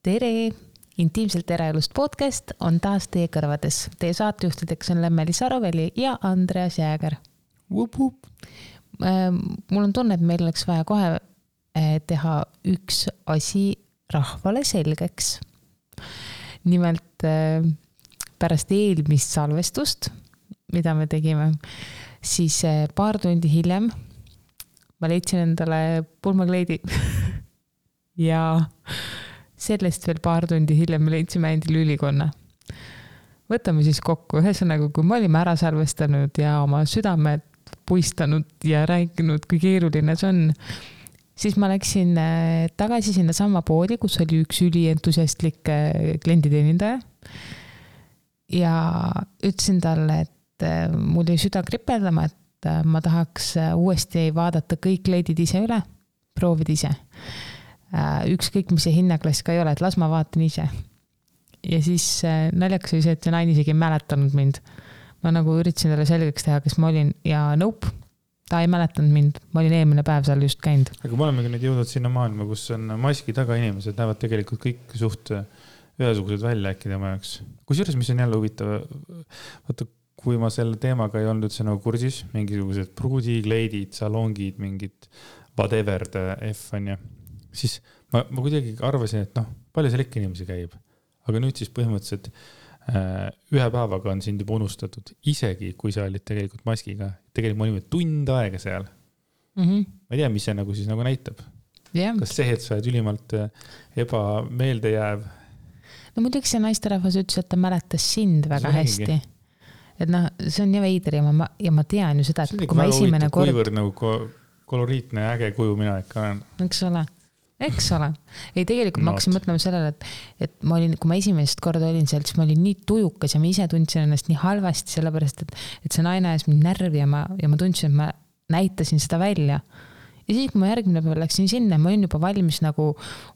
Tere! Intiimselt eraelust podcast on taas teie kõrvades. Teie saatejuhtideks on Lemmeli Saroväli ja Andreas Jääger. Mul on tunne, et meil oleks vaja kohe teha üks asi rahvale selgeks. Nimelt pärast eelmist salvestust, mida me tegime, siis paar tundi hiljem ma leidsin endale pulmakleidi ja sellest veel paar tundi hiljem me leidsime endile ülikonna. Võtame siis kokku. Ühesõnaga, kui me olime ära salvestanud ja oma südamed puistanud ja rääkinud, kui keeruline see on, siis ma läksin tagasi sinna sama poodi, kus oli üks ülientusiastlik klienditeenindaja ja ütlesin talle, et mul jäi süda kripeldama, et ma tahaks uuesti vaadata kõik kleidid ise üle, proovida ise. Ükskõik, mis see hinnaklass ka ei ole, et las ma vaatan ise. Ja siis naljakas oli see, et see naine isegi ei mäletanud mind. Ma nagu üritasin talle selgeks teha, kes ma olin ja nope, ta ei mäletanud mind. Ma olin eelmine päev seal just käinud. Aga me olemegi nüüd jõudnud sinna maailma, kus on maski taga inimesed, näevad tegelikult kõik suht ühesugused välja äkki tema jaoks. Kusjuures, mis on jälle huvitav, vaata, kui ma selle teemaga ei olnud üldse nagu kursis, mingisugused pruudi, kleidid, salongid, mingid whatever F on ja siis ma kuidagi arvasin, et palju seal ikka inimesi käib. Aga nüüd siis põhimõtteliselt ühe päevaga on sind juba unustatud. Isegi, kui sa olid tegelikult maskiga. Tegelikult me olime tund aega seal. Ma ei tea, mis see nagu siis nagu näitab. Yeah. Kas see, et sa oled ülimalt ebameelde jääv? No muidugi see naisterahvas ütles, et ta mäletas sind väga hästi. Et see on nii veider ja ma tean ju seda, et kui ma esimene kord... Kuivõrd nagu koloriitne ja äge kuju mina ikka olen. Eks ole. Ei, tegelikult ma hakkasin mõtlema sellele, et ma olin, kui ma esimest korda olin seal, siis ma olin nii tujukas ja ma ise tundsin ennast nii halvasti, sellepärast, et see naine ajas mind närvi ja ma tundsin, et ma näitasin seda välja. Ja siis, kui ma järgmine päev läksin sinna, ma olin juba valmis nagu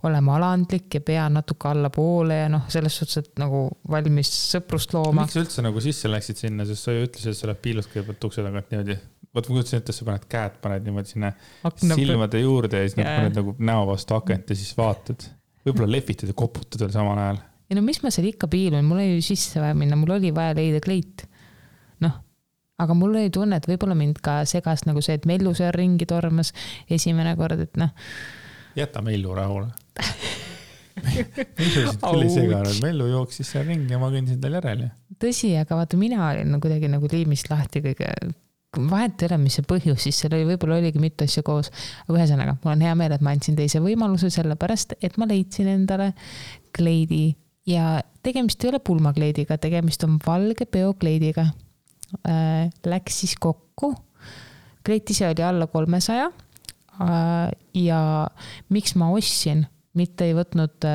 olema alandlik ja pea natuke alla poole ja selles suhtes, et nagu valmis sõprust looma. Miks sa üldse nagu sisse läksid sinna, sest sa ju ütlesid, et sa oled piilust kõigepealt ukse tagant niimoodi. Võt ma kutsin, et sa paned käed, paned niimoodi sinna silmade juurde ja siis paned nagu näo vastu akent ja siis vaatad. Võib-olla lehvitad ja koputad veel samal ajal. Ja mis ma seal ikka piilun, mul oli sisse vaja minna, mul oli vaja leida kleit. Aga mul oli tunne, et võib-olla mind ka segas nagu see, et Mellu seal ringi tormas esimene kord, et Jäta Mellu rahule. Mellu seganud. Mellu jooksis seal ringi ja ma kõndisin tal järel. Tõsi, aga vaata, mina olin kuidagi nagu liimist lahti kõige... Vahet ei ole, mis see põhjus, siis seal võib-olla oligi mitu asja koos. Aga ühesõnaga, mul on hea meel, et ma andsin teise võimaluse sellepärast, et ma leidsin endale kleidi ja tegemist ei ole pulmakleidiga, tegemist on valge peokleidiga. Läks siis kokku. Kleit ise oli alla 300 ja miks ma ostsin, mitte ei võtnud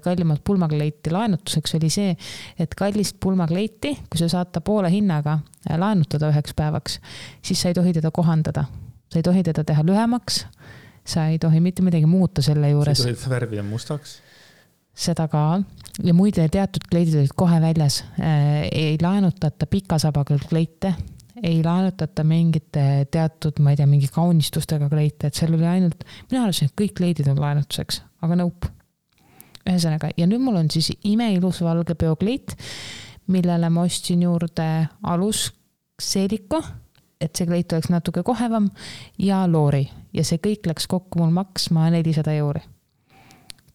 kallimat pulmakleiti laenutuseks, oli see, et kallist pulmakleiti, kui sa saad ta poole hinnaga laenutada 1 päevaks, siis sa ei tohi teda kohandada. Sa ei tohi teda teha lühemaks, sa ei tohi mitte midagi muuta selle juures. Sa ei tohi värvida mustaks? Seda ka. Ja muide teatud kleidid olid kohe väljas. Ei laenutata pikasabaga kleite, ei laenutata mingite teatud, ma ei tea, mingi kaunistustega kleite, et seal oli ainult, mina arvasin, et kõik kleidid on laenutuseks, aga nope. Ühesõnaga, ja nüüd mul on siis imeilus valge peokleit, millele ma ostsin juurde alusseeliku, et see kleit oleks natuke kohevam ja loori. Ja see kõik läks kokku mul maksma 400 €.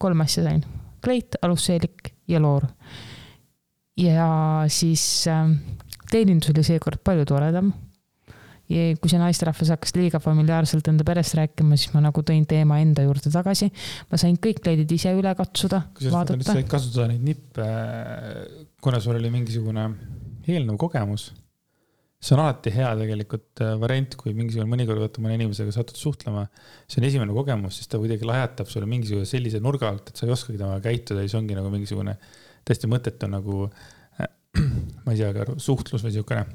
3 asja sain. Kleit, alusseelik ja loor. Ja siis teenindus oli seekord palju toredam. Ja kui see naisterahvas hakkas liiga familiaarselt enda perest rääkima, siis ma nagu tõin teema enda juurde tagasi. Ma sain kõik kleidid ise üle katsuda, vaadata. Sa said kasutada neid nippe, kuna sul oli mingisugune eelnõu kogemus. See on alati hea tegelikult variant, kui mingisugune mõnikord võtta mõne inimesega satud suhtlema. See on esimene kogemus, siis ta kuidagi lajatab sulle mingisugune sellise nurga alt, et sa ei oskagi temaga käituda ja see ongi nagu mingisugune täiesti mõttetu nagu, ma ei tea, suhtlus või siukene.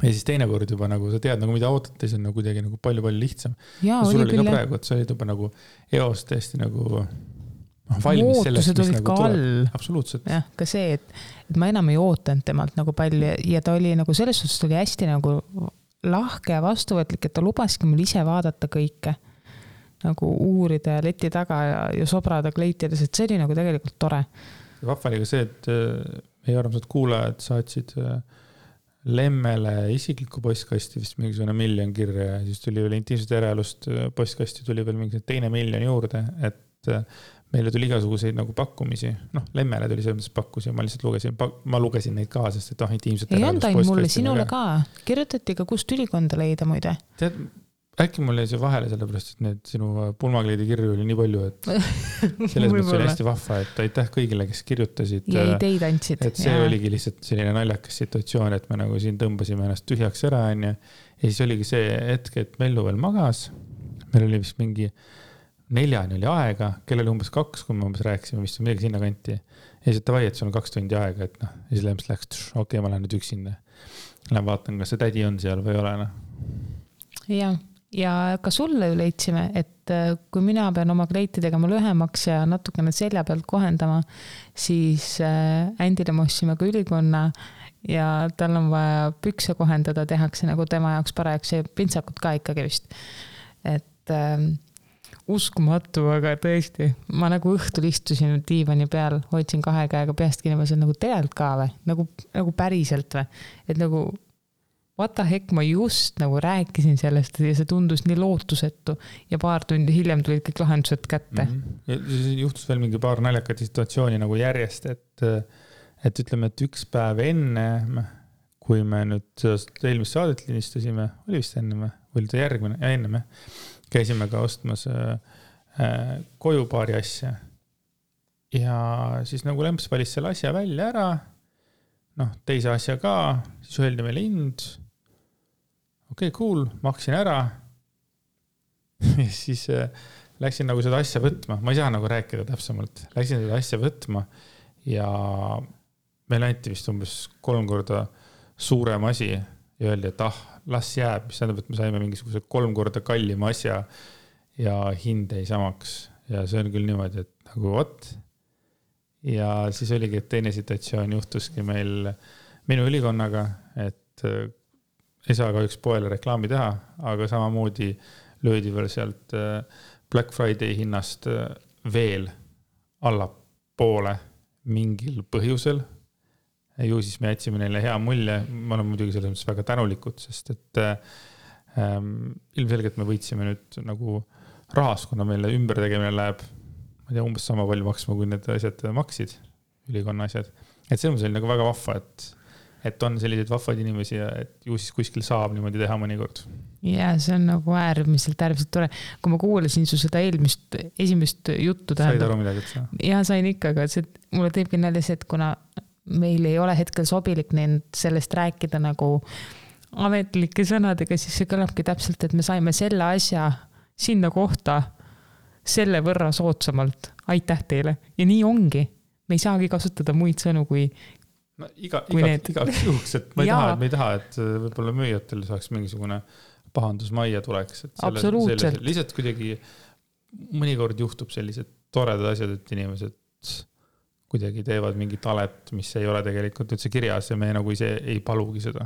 Ja siis teine kord juba nagu sa tead, nagu mida ootate, see on nagu kuidagi nagu palju lihtsam. Ja sul oli ka praegu, et sa olid juba nagu eos tõesti nagu valmis sellest, mis nagu tuleb. Absoluutselt. Ja, ka see, et ma enam ei ootanud temalt nagu palju ja ta oli nagu selles suhtes oli hästi nagu lahke ja vastuvõtlik, et ta lubaski mul ise vaadata kõike. nagu uurida ja leti taga ja sobrada kleitides, et see oli nagu tegelikult tore. Vahva oli ka see, et meie armsad kuulajad saatsid Lemmele isikliku postkasti vist mingisugune 1 miljon kirja ja siis tuli veel intiimsed eraelust postkasti tuli veel mingi 2 miljon juurde, et meile tuli igasuguseid nagu pakkumisi. Lemmele tuli selles mõttes pakkusi ja ma lihtsalt lugesin neid ka, sest et intiimsed eraelust postkasti. Ei anda mulle, sinule ka. Kirjutati ka, kust ülikonda leida muide. Tead, äkki mul jäi see vahele sellepärast, et need sinu pulmakleidi kirju oli nii palju, et selles mõttes oli hästi vahva, et aitäh kõigile, kes kirjutasid. Ja ideid andsid. Et see oligi lihtsalt selline naljakas situatsioon, et me nagu siin tõmbasime ennast tühjaks ära. Ja siis oligi see hetk, et Mellu veel magas. Meil oli vist mingi 4 oli aega, kellel umbes 2, kui me umbes rääkisime, vist on midagi sinna kanti. Ja siis tavai, et sul on 2 tundi aega, et ja siis Lemps läks, okei, ma lähen nüüd üksinda. Lähen vaatan, kas see tädi on seal või ei ole. Ja ka sulle ju leidsime, et kui mina pean oma kleiti tegema lühemaks ja natukene selja pealt kohendama, siis Ändile me ostsime ka ülikonna ja tal on vaja pükse kohendada, tehakse nagu tema jaoks parajaks ja pintsakut ka ikkagi vist. Et uskumatu, aga tõesti, ma nagu õhtul istusin diivani peal, hoidsin 2 käega peast kinni, ma sain nagu tegelikult ka või, nagu päriselt või, et nagu what the heck, ma just nagu rääkisin sellest ja see tundus nii lootusetu ja paar tundi hiljem tulid kõik lahendused kätte. Ja siis juhtus veel mingi paar naljakat situatsiooni nagu järjest, et ütleme, et 1 päev enne, kui me nüüd eelmist saadet linistasime, oli vist enne või oli ta järgmine ja enne me käisime ka ostmas koju paari asja ja siis nagu Lemps valis selle asja välja ära, teise asja ka, siis öeldi meile hind. Okei, cool, maksin ära. Ja siis läksin nagu seda asja võtma. Ma ei saa nagu rääkida täpsemalt. Läksin seda asja võtma ja meil anti vist umbes 3 korda suurem asi ja öeldi, et las jääb, mis tähendab, et me saime mingisuguse 3 korda kallima asja ja hind ei samaks. Ja see on küll niimoodi, et nagu what? Ja siis oligi, et teine situatsioon juhtuski meil minu ülikonnaga, et ei saa ka üks poele reklaami teha, aga samamoodi löödi veel sealt Black Friday hinnast veel allapoole mingil põhjusel. Ju siis me jätsime neile hea mulje, ma olen muidugi selles mõttes väga tänulikud, sest et ilmselgelt me võitsime nüüd nagu rahas, kuna meile ümbertegemine läheb, ma ei tea, umbes sama palju maksma, kui need asjad maksid, ülikonna asjad. Et see on selline nagu väga vahva, et on selliseid vahvaid inimesi ja et ju siis kuskil saab niimoodi teha mõnikord. Ja see on nagu äärmiselt tore. Kui ma kuulasin su seda esimest juttu tähendab. Said aru midagi, et sa? Ja sain ikka, aga mulle teebki nalja see, et kuna meil ei ole hetkel sobilik sellest rääkida nagu ametlike sõnadega, siis see kõlabki täpselt, et me saime selle asja sinna kohta selle võrra soodsamalt. Aitäh teile. Ja nii ongi. Me ei saagi kasutada muid sõnu kui igaks juhuks, et me ei taha, et võib-olla müüjatel saaks mingisugune pahandus majja tuleks. Absoluutselt. Lihtsalt kuidagi mõnikord juhtub sellised toredad asjad, et inimesed kuidagi teevad mingi talet, mis ei ole tegelikult üldse kirjas ja me nagu ise ei palugi seda.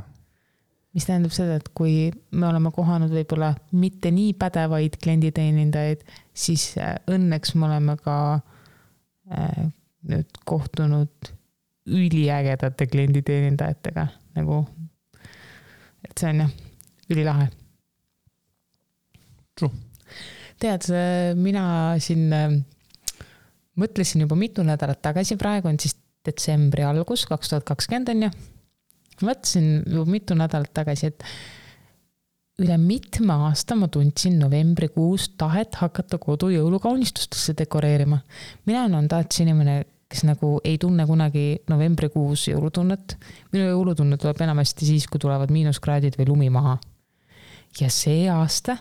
Mis tähendab seda, et kui me oleme kohanud võib-olla mitte nii pädevaid klienditeenindajaid, siis õnneks me oleme ka nüüd kohtunud üliägedate klienditeenindajatega, nagu, et see on ülilahe. True. Tead, mina siin mõtlesin juba mitu nädalat tagasi, praegu on siis detsembri algus, 2020 on ju. Mõtlesin juba mitu nädalat tagasi, et üle mitme aasta ma tundsin novembrikuus tahet hakata kodu jõulukaunistustesse dekoreerima. Mina on tahtsin inimene, kes nagu ei tunne kunagi novembrikuus jõulutunnet. Minu jõulutunne tuleb enamasti siis, kui tulevad miinuskraadid või lumi maha. Ja see aasta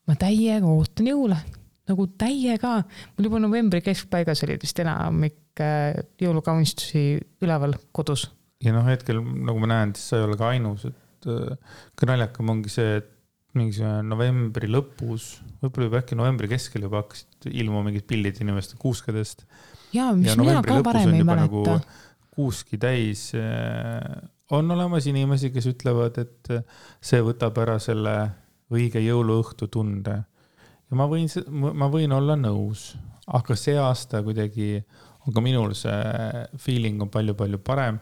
ma täiega ootan jõule. Nagu täiega. Mul juba novembri keskpaigas oli vist enamik jõulukaunistusi üleval kodus. Ja hetkel, nagu ma näen, siis sa ei ole ka ainus, et kõnaljakam ongi see, et mingi novembri lõpus, võib-olla juba äkki novembri keskel juba hakkasid ilma mingid pildid inimeste kuuskadest. Ja, mis mina ka varem ei mäleta. Nagu kuuski täis on olemas inimesi, kes ütlevad, et see võtab ära selle õige jõuluõhtu tunde. ja ma võin olla nõus, aga see aasta kuidagi on ka minul see feeling on palju-palju parem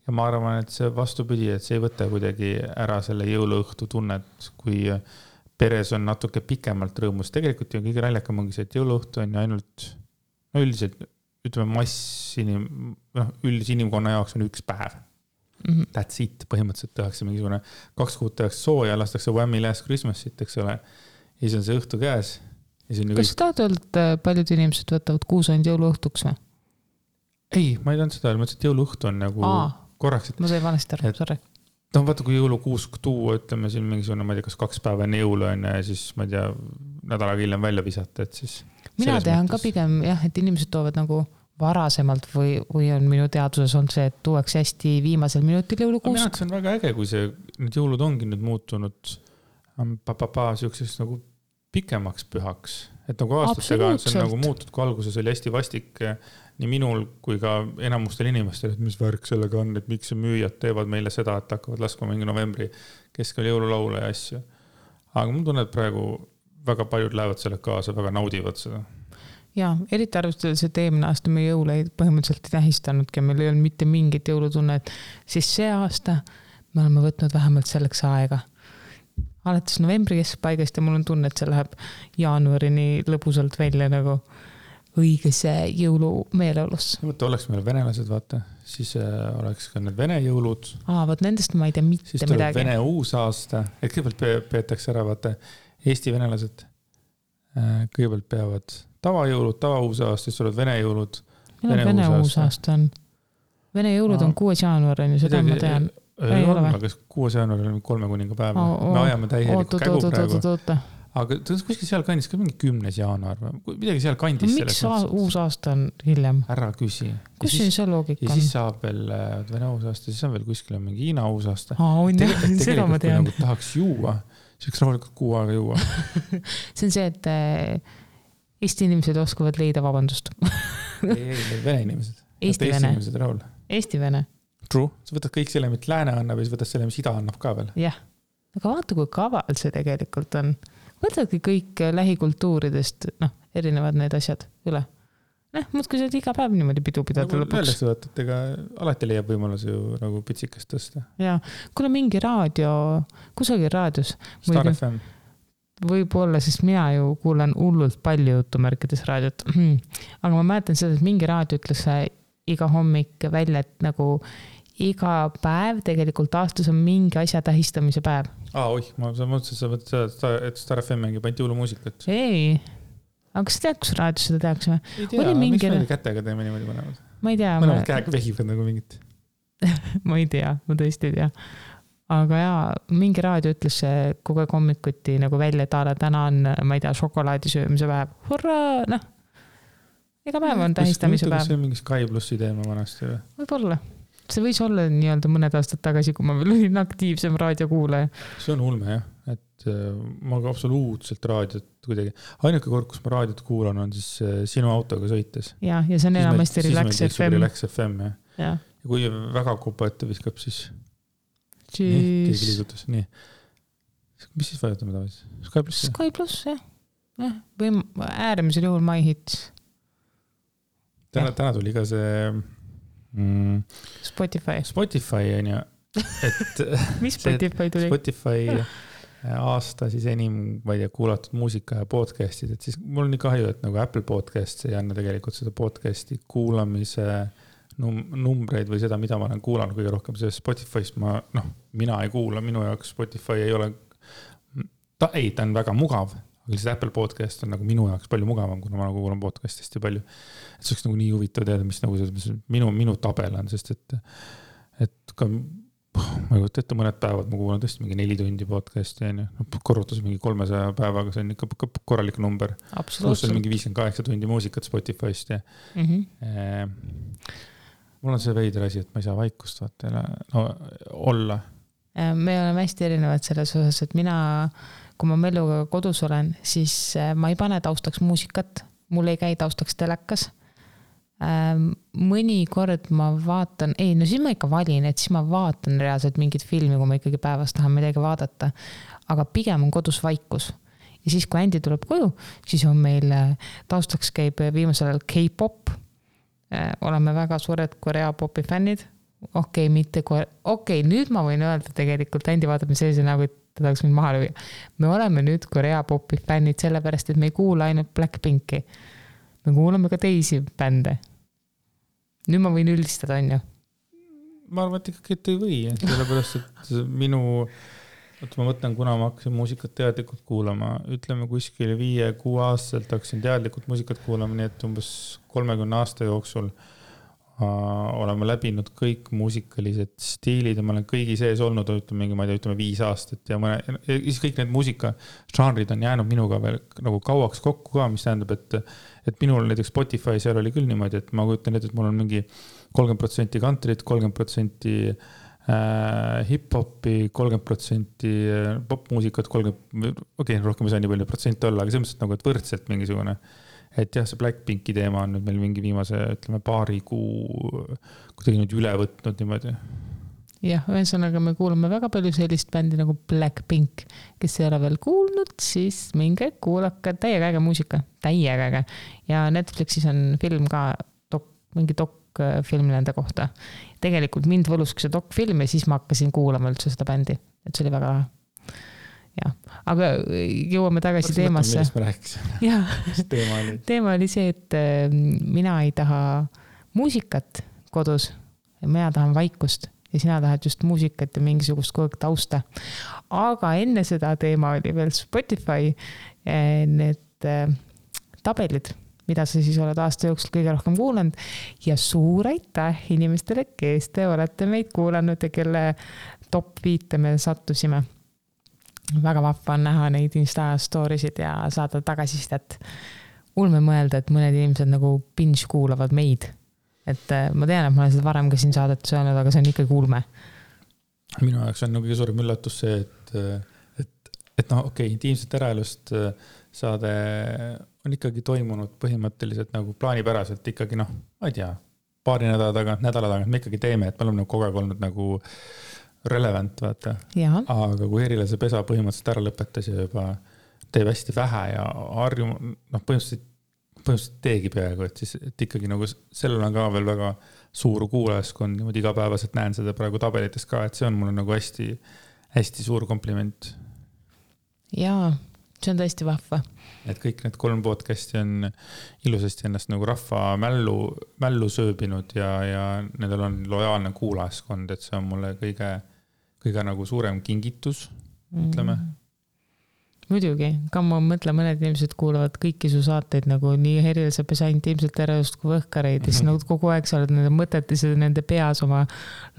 ja ma arvan, et see vastupidi, et see ei võta kuidagi ära selle jõuluõhtu tunnet, kui peres on natuke pikemalt rõõmus. Tegelikult ju kõige naljakam ongi see, et jõuluõhtu on ju ainult üldiselt, ütleme üldise inimkonna jaoks on üks päev. That's it, põhimõtteliselt tehakse mingisugune 2 kuud tehakse sooja, lastakse Whammy Last Christmasit, eks ole. Ja siis on see õhtu käes. Kas sa tahad öelda, et paljud inimesed võtavad kuusand jõuluõhtuks või? Ei, ma ei tahan seda, ma ütlesin, et jõuluõhtu on nagu korraks. Ma sain valesti aru, sorry. No vaata, kui jõulukuusk tuua, ütleme siin mingisugune, ma ei tea, kas 2 päeva enne jõulu on ja siis, ma ei tea, nädalaga hiljem välja visata, et siis... Mina tean ka pigem, jah, et inimesed toovad nagu varasemalt või on minu teaduses on see, et tuuakse hästi viimasel minutil jõulukuusk. Mina, et see on väga äge, kui need jõulud ongi nüüd muutunud siukseks nagu pikemaks pühaks. Et nagu aastatega on see nagu muutud, kui alguses oli hästi vastik nii minul kui ka enamustel inimestel, et mis värk sellega on, et miks müüjad teevad meile seda, et hakkavad laskma mingi novembri keskel jõululaule ja asju. Aga mul tunned praegu väga paljud lähevad selle kaasa, väga naudivad seda. Ja, eriti arvestades, et eelmine aasta me jõule põhimõtteliselt ei tähistanudki ja meil ei olnud mitte mingit jõulutunnet, siis see aasta me oleme võtnud vähemalt selleks aega. Alates novembri keskpaigast ja mul on tunne, et see läheb jaanuarini lõbusalt välja nagu õigese jõulumeeleolus. Võtta oleks meil venelased, vaata, siis oleks ka need vene jõulud. Võt nendest ma ei tea mitte siis midagi. Siis tuleb vene uusaasta, et kõigepealt peetakse ära, vaata, Eesti venelased kõigepealt peavad tavajõulud, tavauusaasta, siis tulevad vene jõulud. Vene uusaasta on. Vene jõulud on 6. jaanuarini, seda ma tean. Ei ole, aga 6. jaanuaril on 3 kuninga päev. Me ajame täielikku kägu praegu. Aga kuskil seal kandis ka mingi 10. jaanuar. Midagi seal kandis. Miks uus aasta on hiljem? Ära küsi. Kus see loogika on? Ja siis saab veel Vene uusaasta, siis on veel kuskil mingi Hiina uusaasta. Seda ma tean. Kui tahaks juua, siis rahulikult 6 aega juua. See on see, et Eesti inimesed oskavad leida vabandust. ei, Vene inimesed. Eesti Vene. Eesti Vene. True. Sa võtad kõik selle, mis lääne annab ja siis võtad selle, mis ida annab ka veel. Jah. Aga vaata, kui kaval see tegelikult on. Võtadki kõik lähikultuuridest, erinevad need asjad üle. Muudki see iga päev niimoodi pidu pidada lõpuks. Öeldakse, et ega alati leiab võimalus ju nagu pitsikest tõsta. Ja, kuule mingi kusagil raadios. Star FM. Võib-olla, sest mina ju kuulen hullult palju jutumärkides raadiot. Aga ma mäletan seda, et mingi raadio ütles iga hommik välja, et nagu iga päev tegelikult aastas on mingi asja tähistamise päev. Ma mõtlesin, et Star FM mängib ainult jõulumuusikat. Ei, aga kas sa tead, kus raadios seda tehakse? Ei tea, miks me kätega teeme niimoodi mõlemad? Ma ei tea. Mõlemad käega vehivad nagu mingit. Ma ei tea, ma tõesti ei tea. Aga mingi raadio ütles kogu aeg hommikuti nagu välja, et täna on, ma ei tea, šokolaadi söömise päev. Hurraa, Iga päev on tähistamise päev. See on mingi Sky Plussi teema vanasti või? Võib-olla. See võis olla nii-öelda mõned aastad tagasi, kui ma veel olin aktiivsem raadiokuulaja. See on ulme, jah. Et ma ka absoluutselt raadiot kuidagi. Ainuke kord, kus ma raadiot kuulan, on siis sinu autoga sõites. Ja see on enamasti Relax FM. Relax FM, jah. Ja kui väga kupa ette viskab, siis keegi liigutus. Nii. Mis siis vajutame tavaliselt? Sky Plus? Sky Plus, jah. Või äärmisel juhul My Hits. Täna tuli ka see Spotify on ju. Mis Spotify tuli? Spotify aasta siis enim, ma ei tea, kuulatud muusika ja podcastid, et siis mul on nii kahju, et nagu Apple Podcast ei anna tegelikult seda podcasti kuulamise numbreid või seda, mida ma olen kuulanud kõige rohkem, see Spotify'st mina ei kuula, minu jaoks Spotify ei ole, ta on väga mugav, aga lihtsalt Apple Podcast on nagu minu jaoks palju mugavam, kuna ma nagu kuulan podcastist ja palju. Et see oleks nagu nii huvitav teada, mis nagu minu tabel on, sest et ka ma ei võtta ette mõned päevad, ma kuulan tõesti mingi 4 tundi podcasti, korrutas mingi 300 päevaga, see on ikka korralik number. Absoluutselt. Pluss on mingi 58 tundi muusikat Spotify'st ja mul on see veider asi, et ma ei saa vaikust olla. Me oleme hästi erinevad selles osas, et mina, kui ma Melluga kodus olen, siis ma ei pane taustaks muusikat, mul ei käi taustaks telekas. Mõni kord ma vaatan, siis ma ikka valin, et siis ma vaatan reaalselt mingit filmi, kui ma ikkagi päevast tahan midagi vaadata, aga pigem on kodus vaikus. ja siis, kui Andy tuleb koju, siis on meil taustaks käib viimasel ajal K-pop. Oleme väga suured Korea popi fännid. Nüüd ma võin öelda tegelikult, Andy vaatab sellise nagu, et ta tahaks mind maha lüüa. Me oleme nüüd Korea popi fännid sellepärast, et me ei kuula ainult Blackpinki. Me kuulame ka teisi bände. Nüüd ma võin üldistada, on ju? Ma arvan, et ikkagi, et ei või, sellepärast, et ma mõtlen, kuna ma hakkasin muusikat teadlikult kuulama, ütleme kuskil 5-6 aastaselt hakkasin teadlikult muusikat kuulama, nii et umbes 30 aasta jooksul oleme läbinud kõik muusikalised stiilid ja ma olen kõigi sees olnud, ütleme 5 aastat ja kõik need muusikažanrid on jäänud minuga veel nagu kauaks kokku ka, mis tähendab, et minul näiteks Spotify seal oli küll niimoodi, et ma kujutan ette, et mul on mingi 30% country't, 30% hip-hopi, 30% popmuusikat, rohkem ei saa nii palju protsente olla, aga selles mõttes nagu, et võrdselt mingisugune. Et jah, see Blackpinki teema on nüüd meil mingi viimase, ütleme, paari kuu kuidagi nüüd üle võtnud niimoodi. Jah, ühesõnaga me kuulame väga palju sellist bändi nagu Blackpink, kes ei ole veel kuulnud, siis minge kuulake täiega äge muusika, täiega äge. Ja Netflixis on film ka, mingi dokfilm nende kohta. Tegelikult mind võluski see dokfilm ja siis ma hakkasin kuulama üldse seda bändi, et see oli väga lahe. Ja, aga jõuame tagasi teemasse. Millest me rääkisime? Teema oli see, et mina ei taha muusikat kodus ja mina tahan vaikust ja sina tahad just muusikat ja mingisugust kogu tausta. Aga enne seda teema oli veel Spotify need tabelid, mida sa siis oled aasta jooksul kõige rohkem kuulanud ja suur aitäh inimestele, kes te olete meid kuulanud ja kelle top 5 me sattusime. Väga vahva on näha neid Insta storisid ja saada tagasisidet. Ulme mõelda, et mõned inimesed nagu binge kuulavad meid. Et ma tean, et ma olen seda varem ka siin saadet söönud, aga see on ikka ulme. Minu jaoks on kõige suurem üllatus see, et intiimset eraelust saade on ikkagi toimunud põhimõtteliselt nagu plaanipäraselt ikkagi ma ei tea, paari nädala tagant me ikkagi teeme, et me oleme kogu aeg olnud nagu relevant, vaata. Aga kui Herilase pesa põhimõtteliselt ära lõpetas ja juba teeb hästi vähe ja põhimõtteliselt teegi peaaegu, et siis et ikkagi nagu sellel on ka veel väga suur kuulajaskond, niimoodi igapäevaselt näen seda praegu tabelites ka, et see on mulle nagu hästi, hästi suur kompliment. Jaa, see on tõesti vahva. Et kõik need 3 podcasti on ilusasti ennast nagu rahva mällu sööbinud ja nendel on lojaalne kuulajaskond, et see on mulle kõige nagu suurem kingitus, ütleme. Muidugi, ka ma mõtlen, mõned inimesed kuulavad kõiki su saateid nagu nii Herilase pesa intiimselt erelust kui võhkareid ja siis nagu kogu aeg sa oled nende mõtetes ja nende peas oma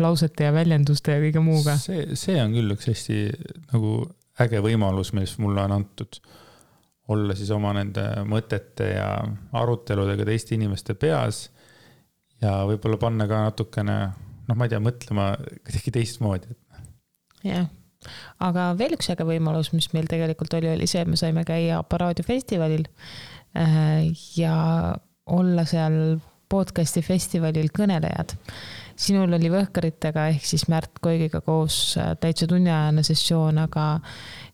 lausete ja väljenduste ja kõige muuga. See on küll üks hästi nagu äge võimalus, mis mulle on antud olla siis oma nende mõtete ja aruteludega teiste inimeste peas ja võib-olla panna ka natukene, ma ei tea, mõtlema kuidagi teistmoodi. Jah, aga veel üks äge võimalus, mis meil tegelikult oli see, et me saime käia Aparaadiofestivalil ja olla seal podcasti festivalil kõnelejad. Sinul oli Võhkaritega ehk siis Märt Koigiga koos täitsa tunniajane sessioon, aga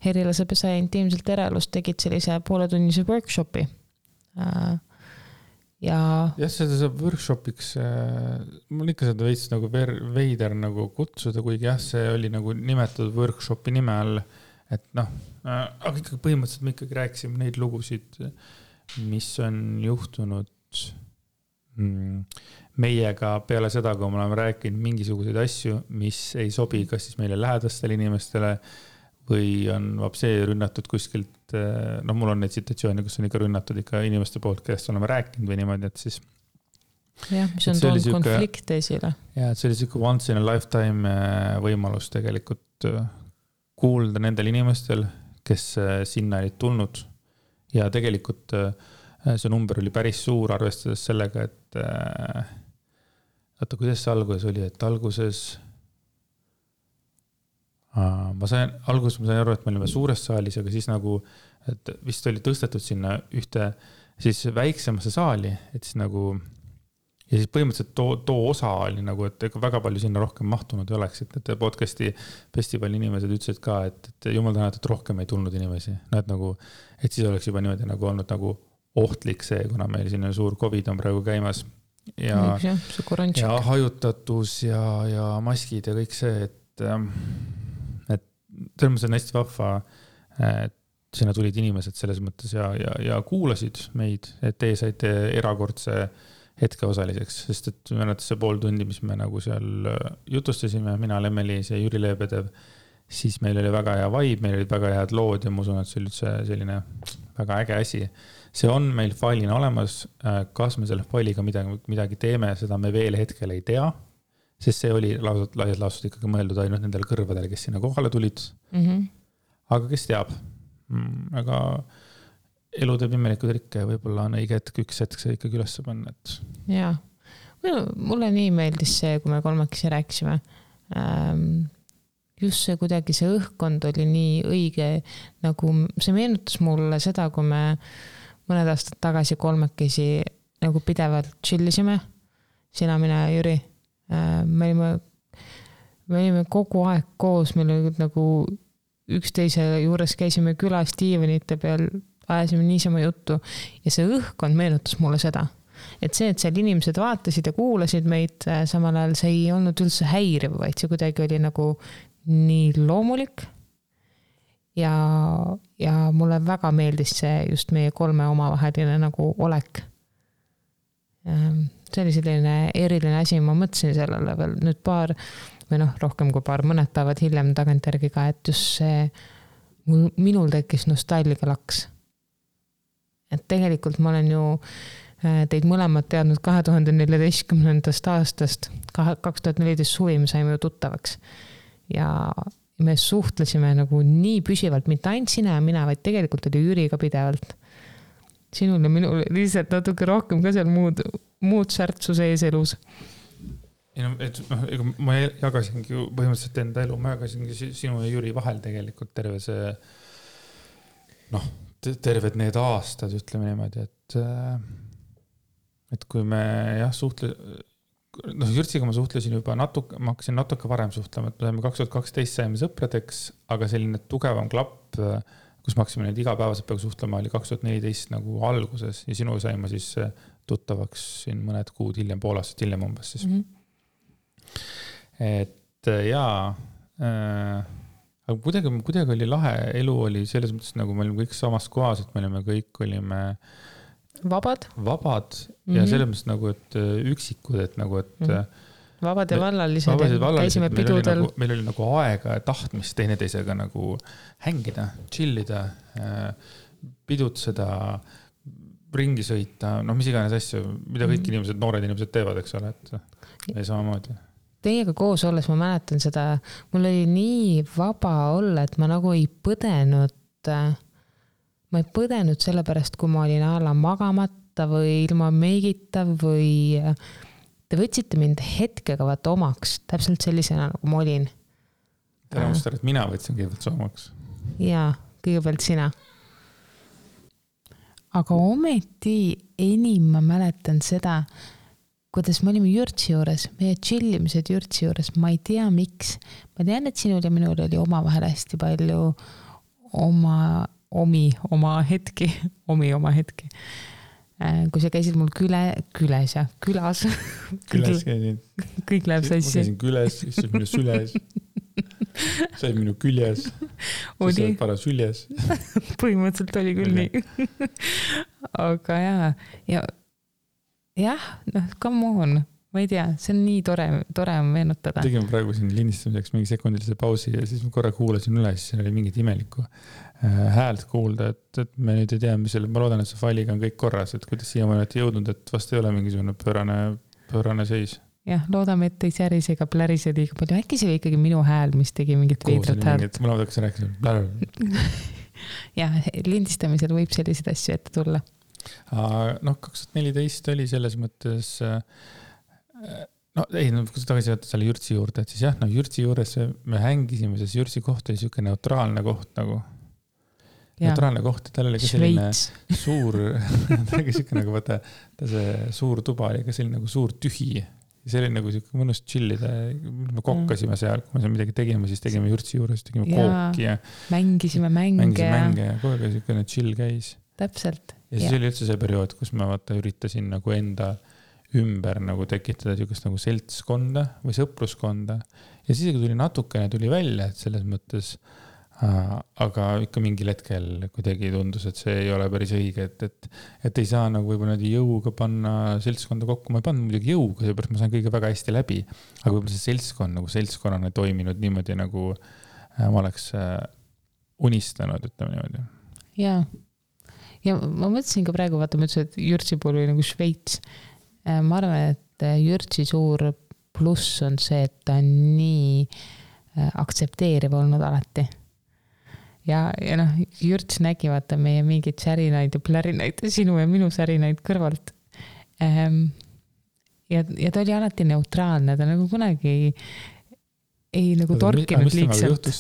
Herilase pesa ja intiimselt erelust tegid sellise pooletunnise workshopi. Jah, seda saab workshopiks, mul ikka seda veits nagu veider nagu kutsuda, kuigi jah, see oli nagu nimetatud workshopi nime all, et aga ikkagi põhimõtteliselt me ikkagi rääkisime neid lugusid, mis on juhtunud meiega peale seda, kui me oleme rääkinud mingisuguseid asju, mis ei sobi kas siis meile lähedastele inimestele või on vapsee rünnatud kuskilt, mul on neid situatsioone, kus on ikka rünnatud ikka inimeste poolt, kellest oleme rääkinud või niimoodi, et siis jah, mis on toonud konflikte esile. Ja, et see oli siuke once in a lifetime võimalus tegelikult kuulda nendel inimestel, kes sinna olid tulnud ja tegelikult see number oli päris suur, arvestades sellega, et kuidas see alguses oli, et alguses ma sain aru, et me olime suures saalis, aga siis nagu, et vist oli tõstetud sinna ühte siis väiksemasse saali, et siis nagu ja siis põhimõtteliselt too osa oli nagu, et ega väga palju sinna rohkem mahtunud ei oleks, et podcasti festivali inimesed ütlesid ka, et jumal tänatud, et rohkem ei tulnud inimesi. No, et nagu, et siis oleks juba niimoodi nagu olnud nagu ohtlik see, kuna meil siin suur COVID on praegu käimas ja hajutatus ja maskid ja kõik see, et selles mõttes on hästi vahva, et sinna tulid inimesed selles mõttes ja kuulasid meid, et teie saite erakordse hetke osaliseks, sest et mõnetes see pool tundi, mis me nagu seal jutustasime, mina, Lemmeliis ja Jüri Leebedev, siis meil oli väga hea vibe, meil olid väga head lood ja ma usun, et see oli üldse selline väga äge asi. See on meil failina olemas, kas me selle failiga midagi teeme, seda me veel hetkel ei tea, sest see oli laias laastud ikkagi mõeldud ainult nendele kõrvadele, kes sinna kohale tulid. Aga kes teab? Aga elu teeb imelikud rikke ja võib-olla on õige hetk üks hetk see ikkagi üles panna. Jaa, mulle nii meeldis see, kui me kolmekesi rääkisime. Just see kuidagi see õhkkond oli nii õige, nagu see meenutas mulle seda, kui me mõned aastad tagasi kolmekesi nagu pidevalt chillisime, sina, mina ja Jüri. Me olime kogu aeg koos, meil oli nagu üksteise juures käisime külas diivanite peal, ajasime niisama juttu ja see õhkkond meenutas mulle seda. Et see, et seal inimesed vaatasid ja kuulasid meid, samal ajal see ei olnud üldse häiriv, vaid see kuidagi oli nagu nii loomulik ja mulle väga meeldis see just meie kolme omavaheline nagu olek. See oli selline eriline asi, ma mõtlesin sellele veel nüüd rohkem kui mõned päevad hiljem tagantjärgi ka, et just see minul tekkis nostalgia laks. Et tegelikult ma olen ju teid mõlemad teadnud 2014. aastast, 2014 suvi me saime ju tuttavaks ja me suhtlesime nagu nii püsivalt, mitte ainult sina ja mina, vaid tegelikult oli Jüri ka pidevalt. Sinul ja minul lihtsalt natuke rohkem ka seal muud särtsu sees elus. Ma jagasingi põhimõtteliselt enda elu, ma jagasingi sinu ja Jüri vahel tegelikult terve see terved need aastad, ütleme niimoodi, et kui me Jürtsiga ma suhtlesin juba ma hakkasin natuke varem suhtlema, et me 2012 saime sõpradeks, aga selline tugevam klapp, kus me hakkasime neid igapäevaselt peaaegu suhtlema, oli 2014 nagu alguses ja sinu saime siis tuttavaks siin mõned kuud hiljem, pool aastat hiljem umbes siis. Et jaa, aga kuidagi oli lahe, elu oli selles mõttes, nagu me olime kõik samas kohas, et me kõik olime vabad ja selles mõttes nagu, et üksikud, et nagu, et vabad ja vallalised, käisime pidudel. Meil oli nagu aega ja tahtmist teineteisega nagu hängida, chillida, pidutseda, ringi sõita, mis iganes asju, mida kõik inimesed, noored inimesed teevad, eks ole, et ei samamoodi. Teiega koos olles ma mäletan seda, mul oli nii vaba olla, et ma nagu ei põdenud selle pärast, kui ma olin alla magamata või ilma meigita või te võtsite mind hetkega vaata omaks, täpselt sellisena nagu ma olin. Tere mustar, et mina võtsin kõigepealt omaks. Jaa, kõigepealt sina. Aga ometi enim ma mäletan seda, kuidas me olime Jürtsi juures, meie chillimised Jürtsi juures, ma ei tea miks. Ma tean, et sinul ja minul oli omavahel hästi palju oma hetki. Kui sa käisid mul külas. Külas käisin. Kõik läheb sassi. Ma käisin küles, siis minu süles. Sai minu küljes. Siis sai para süljes. Põhimõtteliselt oli küll nii. Aga jah, come on, ma ei tea, see on nii tore meenutada. Tegime praegu siin lindistamiseks mingi sekundilise pausi ja siis ma korra kuulasin üle, siis oli mingit imelikku häält kuulda, et me nüüd ei tea, ma loodan, et see failiga on kõik korras, et kuidas siia ma olen jõudnud, et vast ei ole mingisugune pöörane seis. Jah, loodame, et ei särise ega plärise liiga palju. Äkki see oli ikkagi minu hääl, mis tegi mingit veidrat häält. Mul on hakkas rääkida. Jah, lindistamisel võib selliseid asju ette tulla. 2014 oli selles mõttes kui tagasi võtta selle Jürtsi juurde, et siis Jürtsi juures me hängisime, sest Jürtsi koht oli siuke neutraalne koht nagu neutraalne koht, tal oli ka selline suur, ta oli siuke nagu vaata, ta see suur tuba oli ka selline nagu suur tühi. Ja see oli nagu siuke mõnus chillida, me kokkasime seal, kui me seal midagi tegime, siis tegime jurtsi juures, tegime kooki ja mängisime mänge ja kogu aeg siukene chill käis. Täpselt. Ja siis oli üldse see periood, kus ma vaata üritasin nagu enda ümber nagu tekitada siukest nagu seltskonda või sõpruskonda. Ja siis tuli natukene tuli välja, et selles mõttes, aga ikka mingil hetkel kuidagi tundus, et see ei ole päris õige, et ei saa nagu võib-olla jõuga panna seltskonda kokku. Ma ei pannud muidugi jõuga, seepärast ma sain kõige väga hästi läbi, aga võib-olla see seltskond nagu seltskonnana toiminud niimoodi, nagu ma oleks unistanud, ütleme niimoodi. Ja ma mõtlesin ka praegu, vaata, ma ütlesin, et Jürtsi puhul oli nagu Šveits. Ma arvan, et Jürtsi suur pluss on see, et ta on nii aktsepteeriv olnud alati. Ja noh, Jürts nägi vaata meie mingeid särinaid ja plärinaid, sinu ja minu särinaid kõrvalt. Ja ta oli alati neutraalne, ta nagu kunagi ei nagu torkinud liigselt.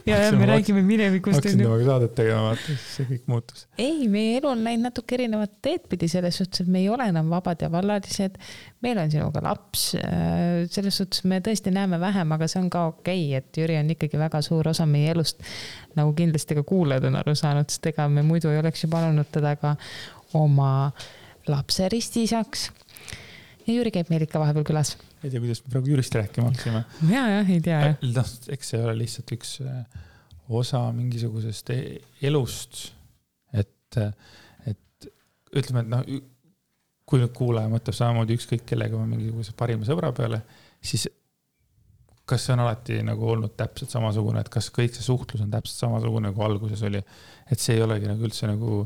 Ja me räägime minevikust. Hakkasin temaga saadet tegema, vaata, siis see kõik muutus. Ei, meie elu on näinud natuke erinevat teed pidi selles suhtes, et me ei ole enam vabad ja vallalised. Meil on sinuga laps. Selles suhtes me tõesti näeme vähem, aga see on ka okei, et Jüri on ikkagi väga suur osa meie elust. Nagu kindlasti ka kuulajad on aru saanud, sest ega me muidu ei oleks ju palunud teda ka oma lapse ristisaks. Ja Jüri käib meil ikka vahepeal külas. Ei tea, kuidas me praegu Jürist rääkima haksime. Ja, ei tea. Eks see ole lihtsalt üks osa mingisugusest elust, et ütleme, et noh, kui nüüd kuulaja mõtleb samamoodi ükskõik kellega ma mingisuguse parima sõbra peale, siis kas see on alati nagu olnud täpselt samasugune, et kas kõik see suhtlus on täpselt samasugune, nagu alguses oli, et see ei olegi nagu üldse nagu,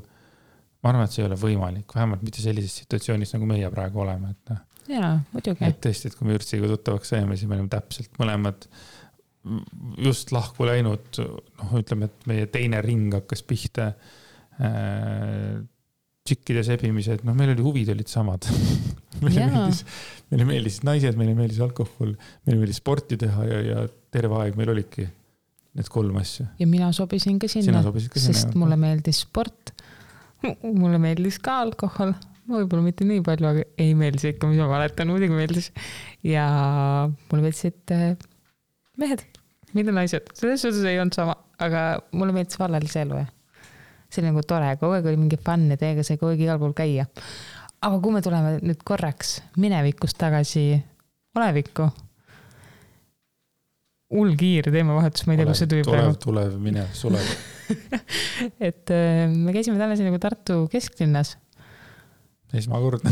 ma arvan, et see ei ole võimalik, vähemalt mitte sellises situatsioonis, nagu meie praegu oleme, et noh. Jaa, muidugi. Et tõesti, et kui me Jürtsiga tuttavaks saime, siis me olime täpselt mõlemad just lahku läinud, noh, ütleme, et meie teine ring hakkas pihta tšikkide sebimised, noh, meil oli huvid olid samad. Meile meeldis naised, meile meeldis alkohol, meile meeldis sporti teha ja terve aeg meil olidki need 3 asja. Ja mina sobisin ka sinna, sest mulle meeldis sport, mulle meeldis ka alkohol, võib-olla mitte nii palju, aga ei meeldis ikka, mis ma mäletan, muidugi meeldis. Ja mulle meeldisid mehed, mitte naised. Selles suhtes ei olnud sama, aga mulle meeldis vallalise elu. See oli nagu tore, kogu aeg oli mingi fun ja teiega sai kogu aeg igal pool käia. Aga kui me tuleme nüüd korraks minevikust tagasi olevikku, kiire teemavahetus, ma ei tea, kus see tuli praegu. Tulev, minev, sulev. Et me käisime täna nagu Tartu kesklinnas. Esmakordne.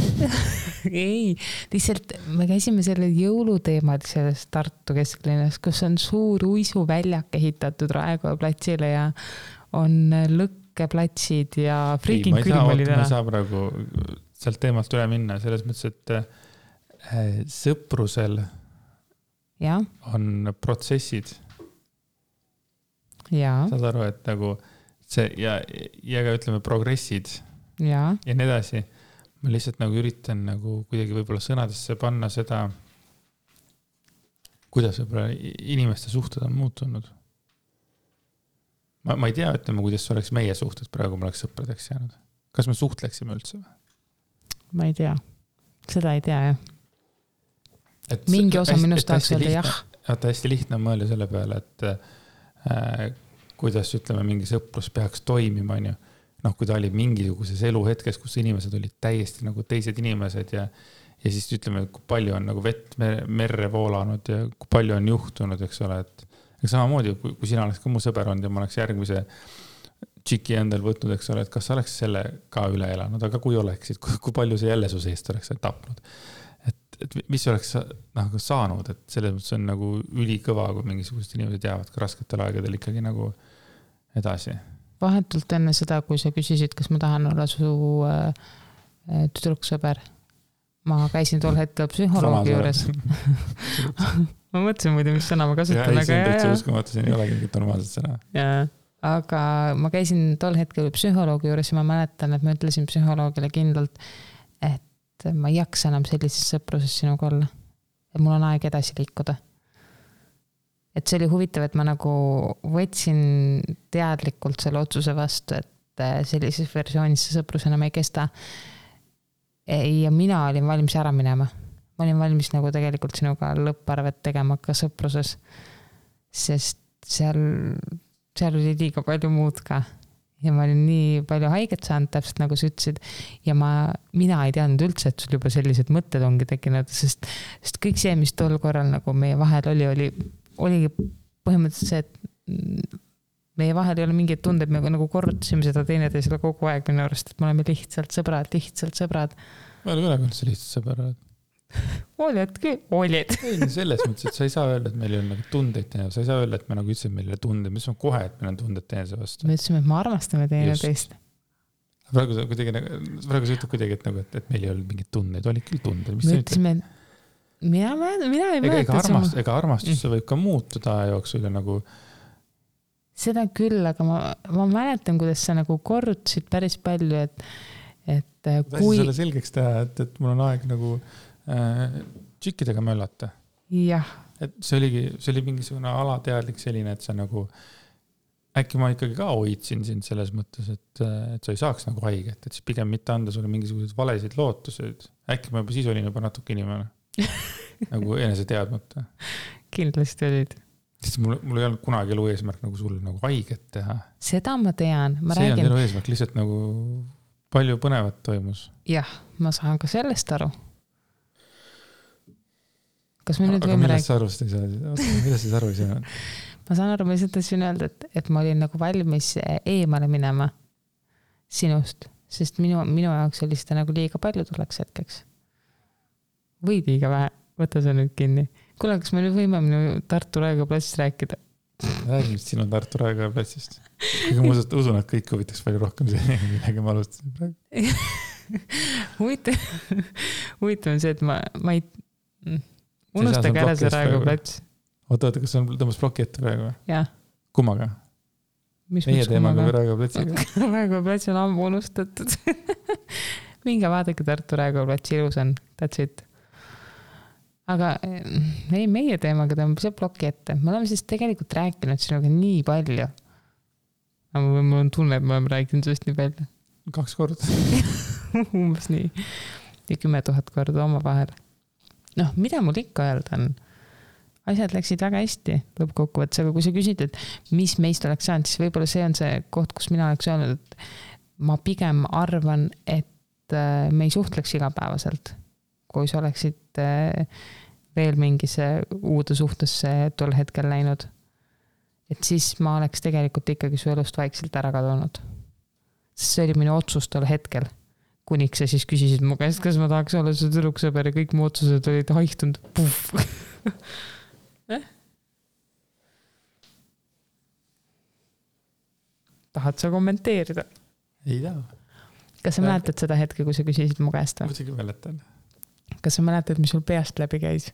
Ei, lihtsalt me käisime selle jõuluteemad selles Tartu kesklinnas, kus on suur uisuväljak ehitatud Raekoja platsile ja on lõkkeplatsid ja freaking külm oli täna. Ma ei saa praegu sealt teemalt üle minna, selles mõttes, et sõprusel on protsessid. Saad aru, et nagu see ja ka ütleme progressid ja nii edasi. Ma lihtsalt nagu üritan nagu kuidagi võib-olla sõnadesse panna seda, kuidas võib-olla inimeste suhted on muutunud. Ma ei tea, ütleme, kuidas oleks meie suhted praegu, ma oleks sõpradeks jäänud. Kas me suhtleksime üldse? Ma ei tea. Seda ei tea, jah. Mingi osa minust tahaks öelda jah. Hästi lihtne on mõelda selle peale, et kuidas, ütleme, mingi sõprus peaks toimima, on ju. Noh, kui ta oli mingisuguses eluhetkes, kus inimesed olid täiesti nagu teised inimesed ja siis ütleme, kui palju on nagu vett merre voolanud ja kui palju on juhtunud, eks ole, et samamoodi, kui sina oleks ka mu sõber olnud ja ma oleks järgmise tšiki endal võtnud, eks ole, et kas sa oleks selle ka üle elanud, aga kui oleksid, kui palju see jälle su seest oleks tapnud. Et mis oleks saanud, et selles mõttes on nagu ülikõva, kui mingisugused inimesed jäävad ka rasketel aegadel ikkagi nagu edasi. Vahetult enne seda, kui sa küsisid, kas ma tahan olla su tüdruksõber, ma käisin tol hetkel psühholoogi juures. Ma mõtlesin muidu, mis sõna ma kasutan. See on täitsa uskumatu, see ei olegi mingit normaalset sõna. Aga ma käisin tol hetkel psühholoogi juures ja ma mäletan, et ma ütlesin psühholoogile kindlalt, et ma ei jaksa enam sellises sõpruses sinuga olla. Et mul on aeg edasi liikuda. et see oli huvitav, et ma nagu võtsin teadlikult selle otsuse vastu, et sellises versioonis see sõprus enam ei kesta. Ja mina olin valmis ära minema. Ma olin valmis nagu tegelikult sinuga lõpparvet tegema ka sõpruses, sest seal oli liiga palju muud ka. Ja ma olin nii palju haiget saanud, täpselt nagu sa ütlesid. Ja mina ei teadnud üldse, et sul juba sellised mõtted ongi tekkinud, sest kõik see, mis tol korral nagu meie vahel oligi põhimõtteliselt see, et meie vahel ei ole mingeid tundeid, me nagu korrutasime seda teineteisele kogu aeg minu arust, et me oleme lihtsalt sõbrad. Ma ei ole üldse lihtsalt sõbrad. Olid küll, olid. Ei, selles mõttes, et sa ei saa öelda, et meil ei ole nagu tundeid teine, sa ei saa öelda, et me nagu ütlesime, et meil ei ole tundeid, me ütlesime kohe, et meil on tunded teineteise vastu. Me ütlesime, et me armastame teineteist. Praegu sa ütled kuidagi, et meil ei olnud mingeid tundeid, olid küll tunded. Me ütlesime, mina ei mäleta. Ega armastus võib ka muutuda aja jooksul ja nagu... Seda küll, aga ma mäletan, kuidas sa nagu korrutasid päris palju, et kui... Sulle selgeks teha, et mul on aeg nagu tšikkidega möllata. Jah. Et see oli mingisugune alateadlik selline, et sa nagu... Äkki ma ikkagi ka hoidsin sind selles mõttes, et sa ei saaks nagu haiget, et siis pigem mitte anda sulle mingisugused valesid lootused. Äkki ma juba siis olin juba natuke inimene. Nagu enese teadmata. Kindlasti olid. Sest mul ei olnud kunagi elu eesmärk nagu sulle nagu haiget teha. Seda ma tean. See on elu eesmärk, lihtsalt nagu palju põnevat toimus. Jah, ma saan ka sellest aru. Kas me nüüd aga võime millest sa arvust ei saa? Millest sa aru ei saa? Ma saan aru, ma lihtsalt tahtsin öelda, et ma olin nagu valmis eemale minema sinust, sest minu jaoks oli seda nagu liiga palju tuleks hetkeks. Või liiga vähe, võta see nüüd kinni. Kuule, kas me nüüd võime minu Tartu Raekoja platsist rääkida? Räägin sinu Tartu Raekoja platsist. Kuigi ma usun, et kõik huvitaks palju rohkem see, millega ma alustasin praegu. Huvitav on see, et ma ei... Unustage ära see Raekoja plats. Oota, kas on tõmbas ploki ette praegu? Jah. Kummaga? Meie teemaga või Raekoja platsiga? Raekoja plats on ammu unustatud. Minge vaadake Tartu Raekoja platsi, ilus on. That's it. Aga ei, meie teemaga tõmbab see ploki ette. Me oleme siis tegelikult rääkinud sinuga nii palju. Aga mul on tunne, et me oleme rääkinud sellest nii palju. 2 korda. Umbes nii. Ja 10 000 korda oma vahel. Mida mul ikka öelda on? Asjad läksid väga hästi lõppkokkuvõttes, aga kui sa küsid, et mis meist oleks saanud, siis võib-olla see on see koht, kus mina oleks öelnud, et ma pigem arvan, et me ei suhtleks igapäevaselt. Kui sa oleksid veel mingisse uude suhtesse tol hetkel läinud, et siis ma oleks tegelikult ikkagi su elust vaikselt ära kadunud. Sest see oli minu otsus tol hetkel. Kuniks sa siis küsisid mu käest, kas ma tahaks olla su tüdruksõber ja kõik mu otsused olid haihtunud. Tahad sa kommenteerida? Ei taha. Kas sa mäletad seda hetke, kui sa küsisid mu käest? Muidugi mäletan. Kas sa mäletad, mis sul peast läbi käis?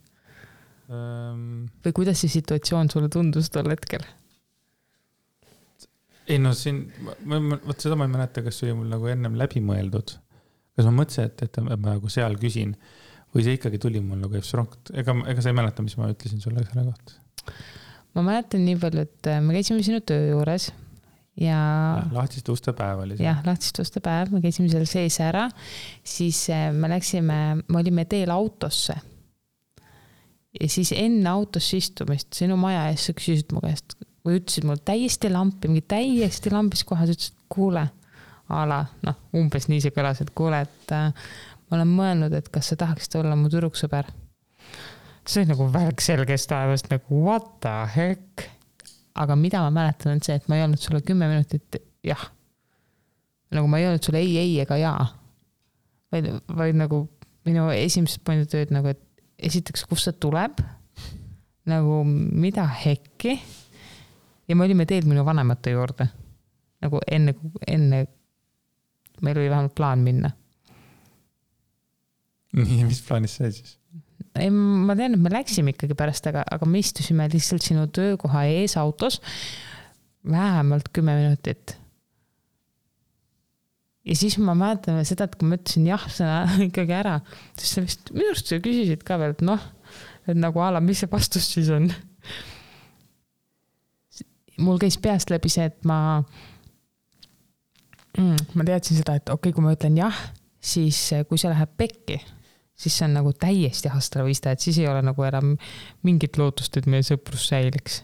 Või kuidas see situatsioon sulle tundus tol hetkel? Ei siin, võt seda ma ei mäleta, kas see oli mul nagu ennem läbi mõeldud. Kas ma mõtlesin, et ma nagu seal küsin või see ikkagi tuli mul nagu efsronkt. Ega sa ei mäleta, mis ma ütlesin sulle selle kohta? Ma mäletan nii palju, et me käisime sinu töö juures ja lahtiste uste päev oli see. Jah, lahtiste uste päev, me käisime seal sees ära, siis me olime teel autosse ja siis enne autosse istumist sinu maja ees sa küsisid mu käest või ütlesid mul täiesti lampis kohas, ütlesid, kuule umbes nii see kõlas, et kuule, et ma olen mõelnud, et kas sa tahaksid olla mu tüdruksõber. See oli nagu väga selgest taevast, nagu what the heck. Aga mida ma mäletan on see, et ma ei olnud sulle 10 minutit jah. Nagu ma ei olnud sulle ei ega jaa. Vaid nagu minu esimesed pointed olid nagu, et esiteks, kus see tuleb, nagu mida hekki ja me olime teel minu vanemate juurde. Nagu enne meil oli vähemalt plaan minna. Nii, mis plaanis see siis? Ei, ma tean, et me läksime ikkagi pärast, aga me istusime lihtsalt sinu töökoha ees autos vähemalt 10 minutit. Ja siis ma mäletan seda, et kui ma ütlesin jah sõna ikkagi ära, siis sa vist minu arust sa küsisid ka veel, et et nagu ala, mis see vastus siis on. mul käis peast läbi see, et ma teadsin seda, et okei, kui ma ütlen jah, siis kui see läheb pekki, siis see on nagu täiesti hastravista, et siis ei ole nagu enam mingit lootust, et meie sõprus säiliks.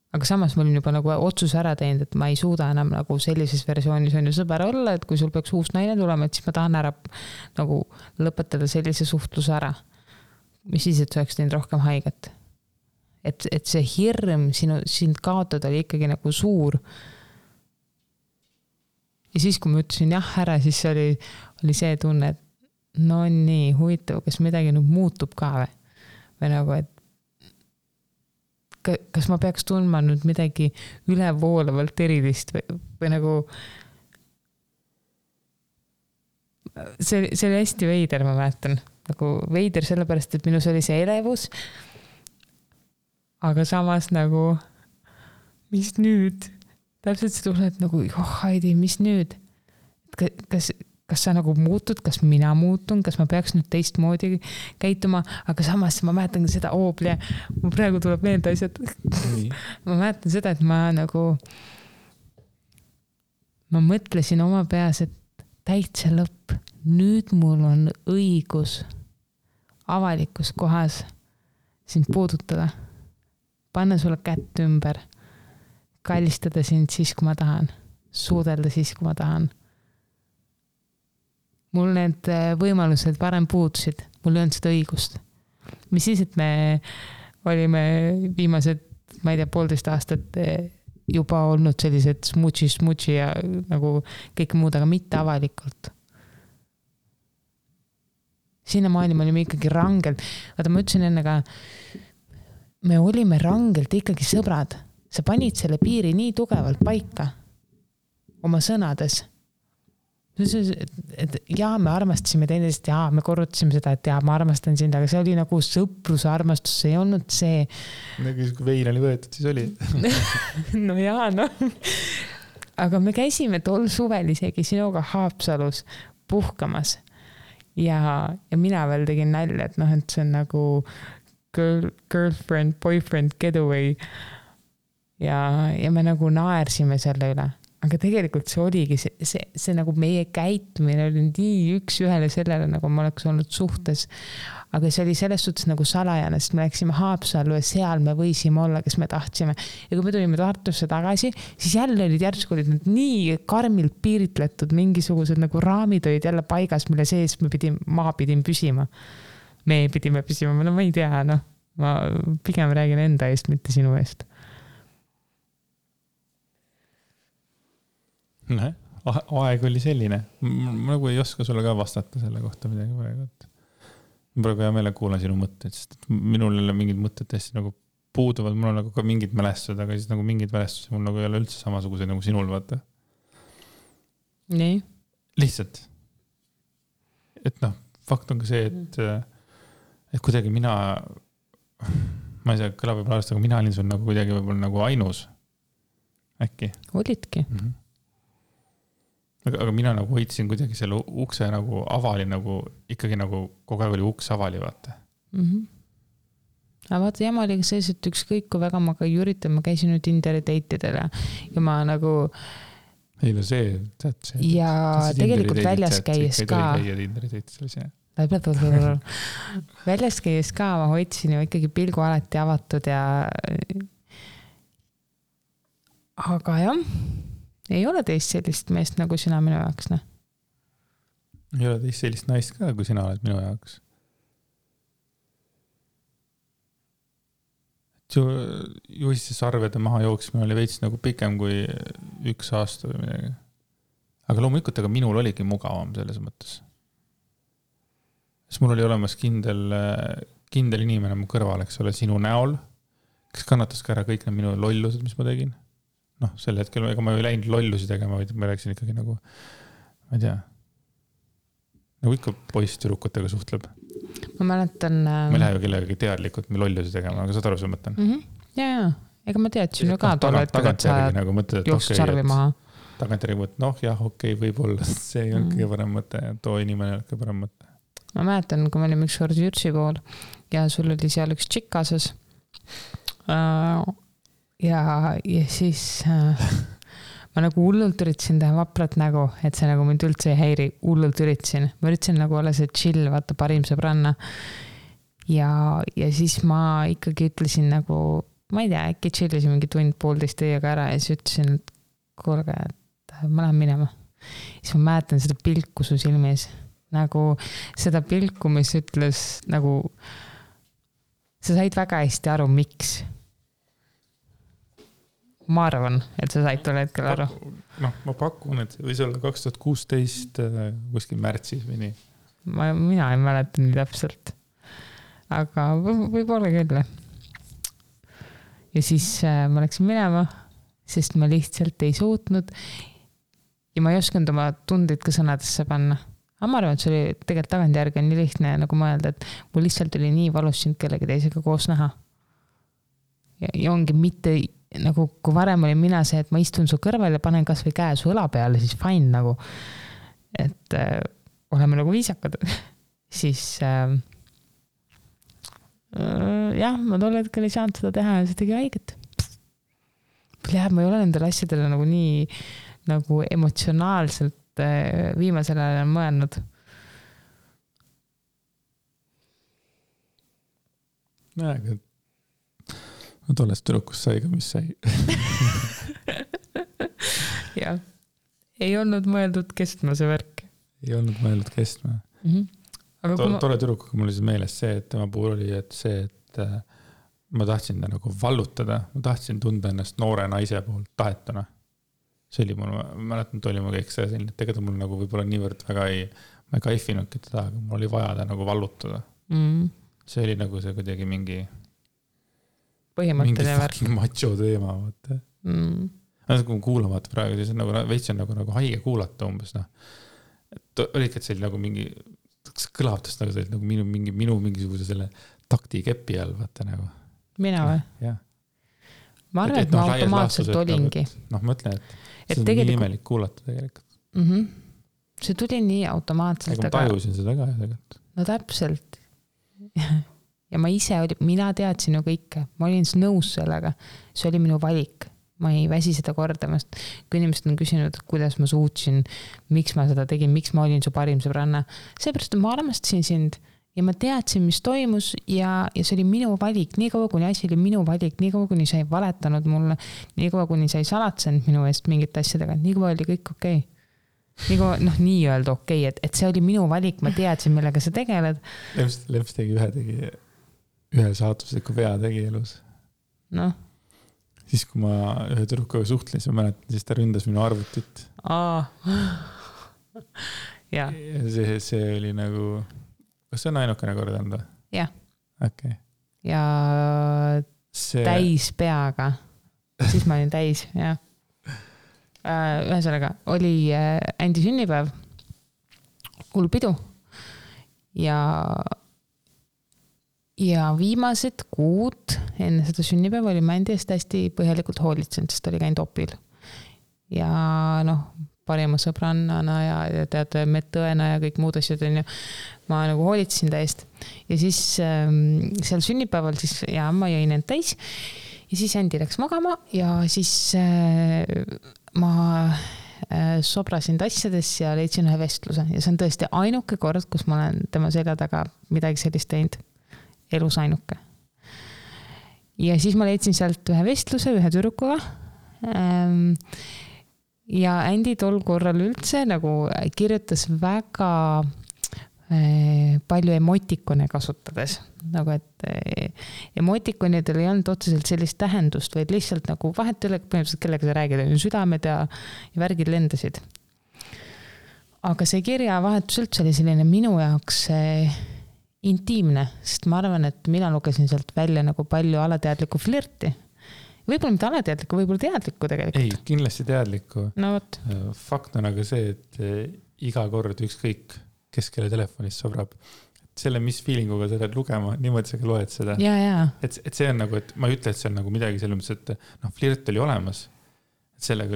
Aga samas ma olin juba nagu otsuse ära teinud, et ma ei suuda enam nagu sellises versioonis on ju sõber olla, et kui sul peaks uus naine tulema, et siis ma tahan ära nagu lõpetada sellise suhtluse ära. Mis siis, et see oleks teinud rohkem haiget. Et see hirm sind kaotada oli ikkagi nagu suur. Ja siis, kui ma ütlesin jah ära, siis oli see tunne, et no nii huvitav, kas midagi nüüd muutub ka või nagu, et kas ma peaks tundma nüüd midagi ülevoolavalt erilist või nagu see oli hästi veider, ma mäletan. Nagu veider sellepärast, et minus oli see elevus, aga samas nagu mis nüüd? Täpselt see tuleb nagu, Heidi, mis nüüd? Kas sa nagu muutud, kas mina muutun, kas ma peaks nüüd teistmoodi käituma, aga samas ma mäletan seda oobli, mul praegu tuleb meelde asjad. Ma mäletan seda, et ma mõtlesin oma peas, et täitsa lõpp. Nüüd mul on õigus avalikus kohas sind puudutada, panna sulle kätt ümber, kallistada sind siis, kui ma tahan, suudelda siis, kui ma tahan. Mul need võimalused varem puudusid, mul ei olnud seda õigust. Mis siis, et me olime viimased, ma ei tea, 1,5 aastat juba olnud sellised smutši ja nagu kõik muud, aga mitte avalikult. Sinnamaani me olime ikkagi rangelt. Vaata, ma ütlesin enne ka, me olime rangelt ikkagi sõbrad. Sa panid selle piiri nii tugevalt paika oma sõnades. Et jaa, me armastasime teineteist, jaa, me korrutasime seda, et jaa, ma armastan sind, aga see oli nagu sõpruse armastus, see ei olnud see. Nagu kui vein oli võetud, siis oli. No jaa, no. Aga me käisime tol suvel isegi sinuga Haapsalus puhkamas ja mina veel tegin nalja, et noh, et see on nagu girlfriend, boyfriend, getaway ja me nagu naersime selle üle. Aga tegelikult see oligi, see nagu meie käitumine oli nii üks ühele sellele, nagu ma oleks olnud suhtes. Aga see oli selles suhtes nagu salajane, sest me läksime Haapsallu ja seal me võisime olla, kes me tahtsime. Ja kui me tulime Tartusse tagasi, siis jälle olid järsku olid need nii karmilt piiritletud, mingisugused nagu raamid olid jälle paigas, mille sees ma pidin püsima. Me pidime püsima, no ma ei tea, noh. Ma pigem räägin enda eest, mitte sinu eest. Aeg oli selline. Ma nagu ei oska sulle ka vastata selle kohta midagi praegu. Ma praegu hea meele kuulan sinu mõtteid, sest minul ei ole mingid mõtted hästi nagu puuduvad, mul on nagu ka mingid mälestused, aga siis nagu mingid mälestused mul nagu ei ole üldse samasugused nagu sinul, vaata. Nii? Lihtsalt. Et noh, fakt on ka see, et kuidagi ma ei saa, kõlab võib-olla arvest, aga mina olin sul nagu kuidagi võib-olla nagu ainus. Äkki? Olidki. Aga mina nagu hoidsin kuidagi selle ukse nagu avali, nagu ikkagi nagu kogu aeg oli uks avali, vaata. Aga vaata, jama oli ka sees, et ükskõik kui väga ma ka üritan, ma käisin nüüd Tinderi date'idele ja ma nagu ei no see, tead see. Ja tegelikult väljas käies ka väljas käies ka ma hoidsin ju ikkagi pilgu alati avatud ja aga jah, ei ole teist sellist meest nagu sina minu jaoks, ne? Ei ole teist sellist naist ka, kui sina oled minu jaoks. Juhisse sarvede maha jooksmine oli veits nagu pikem kui 1 aasta või midagi. Aga loomulikult, aga minul oligi mugavam selles mõttes. Sest mul oli olemas kindel inimene mu kõrval, eks ole, sinu näol, kes kannatas ka ära kõik need minu lollused, mis ma tegin. Noh, sel hetkel, ega ma ei läinud lollusi tegema, vaid ma rääksin ikkagi nagu, ma ei tea, nagu ikka poiss-tüdrukutega suhtleb. Ma mäletan... Ma ei lähe ju kellegagi teadlikult lollusi tegema, aga saad aru, see mõtlen. Ja, ega ma teadsin ju ka tol hetkel, et sa jooksid sarvi maha. Tagantjärgi mõtled, noh jah, okei, võib-olla see ei olnud kõige parem mõte, too inimene ei olnud kõige parem mõte. Ma mäletan, kui me olime üks kord Jürtsi pool ja sul oli seal üks tšikk kaasas. ja siis ma nagu hullult üritasin teha vaprat nägu, et see nagu mind üldse ei häiri, hullult üritasin. Ma üritasin nagu olla see chill, vaata parim sõbranna. Ja siis ma ikkagi ütlesin nagu, ma ei tea, äkki chillisin mingi tund-poolteist teiega ära ja siis ütlesin, et kuulge, et ma lähen minema. Siis ma mäletan seda pilku su silmis. Nagu seda pilku, mis ütles nagu, sa said väga hästi aru, miks. Ma arvan, et sa said tol hetkel aru. Ma pakun, et võis olla 2016 kuskil märtsis või nii. Mina ei mäleta nii täpselt. Aga võib-olla küll. Ja siis ma läksin minema, sest ma lihtsalt ei suutnud ja ma ei osanud oma tundeid ka sõnadesse panna. Aga ma arvan, et see oli tegelikult tagantjärgi nii lihtne nagu mõelda, et mul lihtsalt oli nii valus sind kellegi teisega koos näha. Ja ongi mitte nagu, kui varem oli mina see, et ma istun su kõrval ja panen kas või käe su õla peale, siis fine nagu, et oleme nagu viisakad. Siis jah, ma tol hetkel ei saanud seda teha ja see tegi haiget. Ma ei ole nendele asjadele nagu nii nagu emotsionaalselt viimasel ajal mõelnud. Aga tollest tüdrukust sai ka, mis sai. Jah, ei olnud mõeldud kestma see värk. Ei olnud mõeldud kestma. Tolle tüdrukuga mul oli meeles see, et tema puhul oli, et see, et ma tahtsin ta nagu vallutada, ma tahtsin tunda ennast noore naise poolt tahetuna. See oli mul, ma mäletan, et oli mu kõik see selline, et tegelikult mul nagu võib-olla niivõrd väga ma ei kaifinudki teda, aga mul oli vaja ta nagu vallutada. See oli nagu see kuidagi mingi fucking macho teema. Kui ma kuulan vaata praegu, siis on nagu veits on nagu haige kuulata umbes. Olid, et see oli nagu mingi kõlavtust nagu see oli nagu minu mingisuguse selle takti kepi all, vaata nagu. Mina või? Jah. Ma arvan, et ma automaatselt olingi. Ma ütlen, et see on nii imelik kuulata tegelikult. See tuli nii automaatselt. Aga ma tajusin seda ka tegelikult. No täpselt. Ja ma ise mina teadsin ju kõike. Ma olin nõus sellega. See oli minu valik. Ma ei väsi seda kordamast. Kui inimesed on küsinud, kuidas ma suutsin, miks ma seda tegin, miks ma olin su parim sõbranna. Seepärast, et ma armastasin sind ja ma teadsin, mis toimus ja see oli minu valik. Nii kaua, kuni asi oli minu valik, nii kaua, kuni sa ei valetanud mulle, nii kaua, kuni sa ei salatsenud minu eest mingite asjadega, nii kaua oli kõik okei. Nii kaua, nii öelda okei, et see oli minu valik, ma teadsin, millega sa tegeled. Leps tegi ühe saatusliku vea tegi elus. Siis, kui ma ühe tüdrukuga suhtlen, siis ma mäletan, siis ta ründas minu arvutit. Ja. See oli nagu, kas see on ainukene kord anda? Jah. Okay. Ja täis peaga. Siis ma olin täis, jah. Ühesõnaga, oli Andi sünnipäev, hull pidu ja viimased kuud enne seda sünnipäeva oli Andi eest hästi põhjalikult hoolitsenud, sest oli käinud opil. Ja parima sõbrannana ja tead, medõena ja kõik muud asjad on ju. Ma nagu hoolitsesin ta eest. Ja siis seal sünnipäeval siis ma jõin end täis ja siis Andi läks magama ja siis ma sobrasin tassades ja leidsin ühe vestluse ja see on tõesti ainuke kord, kus ma olen tema selja taga midagi sellist teinud. Elus ainuke. Ja siis ma leidsin sealt ühe vestluse, ühe tüdrukuga. Ja Andi tol korral üldse nagu kirjutas väga palju emotikone kasutades. Nagu, et emotikonidel ei olnud otseselt sellist tähendust, vaid lihtsalt nagu vahet üle, kellega sa räägid, südamed ja värgid lendasid. Aga see kirjavahetus üldse oli selline minu jaoks intiimne, sest ma arvan, et mina lugesin sealt välja nagu palju alateadlikku flirti. Võib-olla mitte alateadlikku, võib-olla teadlikku tegelikult. Ei, kindlasti teadlikku. No võt. Fakt on aga see, et iga kord ükskõik, kes kelle telefonist sobrab. Selle, mis feelinguga sa lähed lugema, niimoodi sa ka loed seda. Ja. Et see on nagu, et ma ei ütle, et see on nagu midagi selles mõttes, et flirt oli olemas. Sellega,